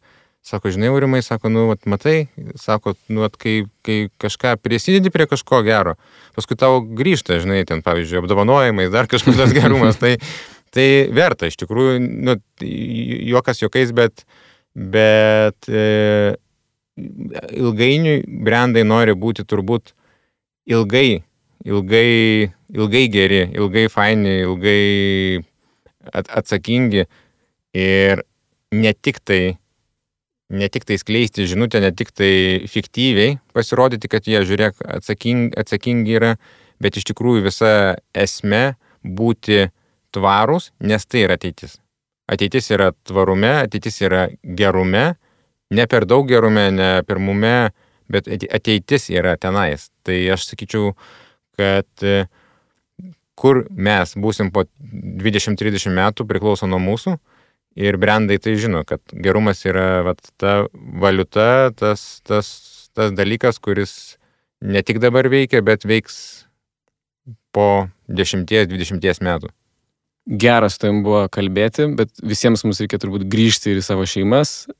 sako, žinai, Aurimai, sako, matai, sako, kai kažką prisidedi prie kažko gero, paskui tau grįžta, žinai, ten, pavyzdžiui, apdovanojimais, dar kažkokios gerumas, tai verta, iš tikrųjų, juokas juokais, bet ilgainiui brandai nori būti turbūt ilgai geri, ilgai faini, ilgai atsakingi ir ne tik tai skleisti žinutę, ne tik tai fiktyviai pasirodyti, kad jie, žiūrėk, atsakingi yra, bet iš tikrųjų visa esmė būti tvarūs, nes tai yra ateitis. Ateitis yra tvarume, ateitis yra gerume, ne per daug gerume, ne pirmume, bet ateitis yra tenais. Tai aš sakyčiau, kad kur mes būsim po 20-30 metų priklauso nuo mūsų. Ir brandai tai žino, kad gerumas yra ta valiuta, tas dalykas, kuris ne tik dabar veikia, bet veiks po 10-20 metų. Geras tavim buvo kalbėti, bet visiems mums reikia turbūt grįžti ir į savo šeimas.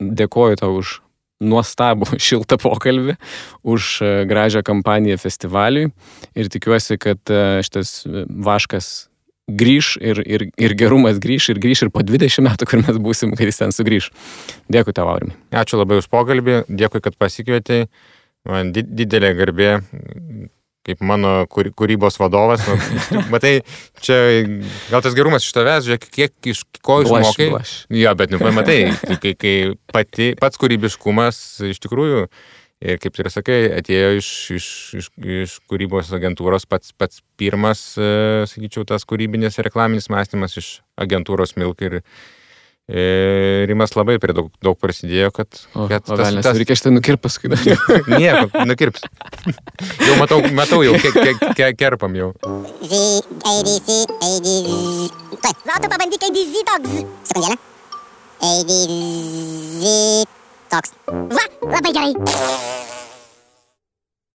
Dėkoju tau už nuostabų šiltą pokalbį, už gražią kampaniją festivaliui ir tikiuosi, kad šitas vaškas grįš ir gerumas grįš ir po 20 metų, kur mes būsim, kai jis ten sugrįš. Dėkui tau, Aurimai. Ačiū labai už pokalbį, dėkui, kad pasikvietei. Man didelė garbė, kaip mano kūrybos vadovas. Matai, čia gal tas gerumas iš tavęs, žiūrėk, kiek iš ko išmokai. Jo, bet matai, kai pats kūrybiškumas iš tikrųjų, ir kaip ir sakai, atėjo iš kūrybos agentūros pats pirmas, sakyčiau, tas kūrybinis reklaminis mąstymas iš agentūros Milk ir Rimas labai prie daug prasidėjo, kad reikia šitą nukirp paskui. Nieko, nukirps. Jau matau jau, kerpam jau. Va, tu pabandyk ADZ toks. Sekundėlę. ADZ toks. Va, labai gerai.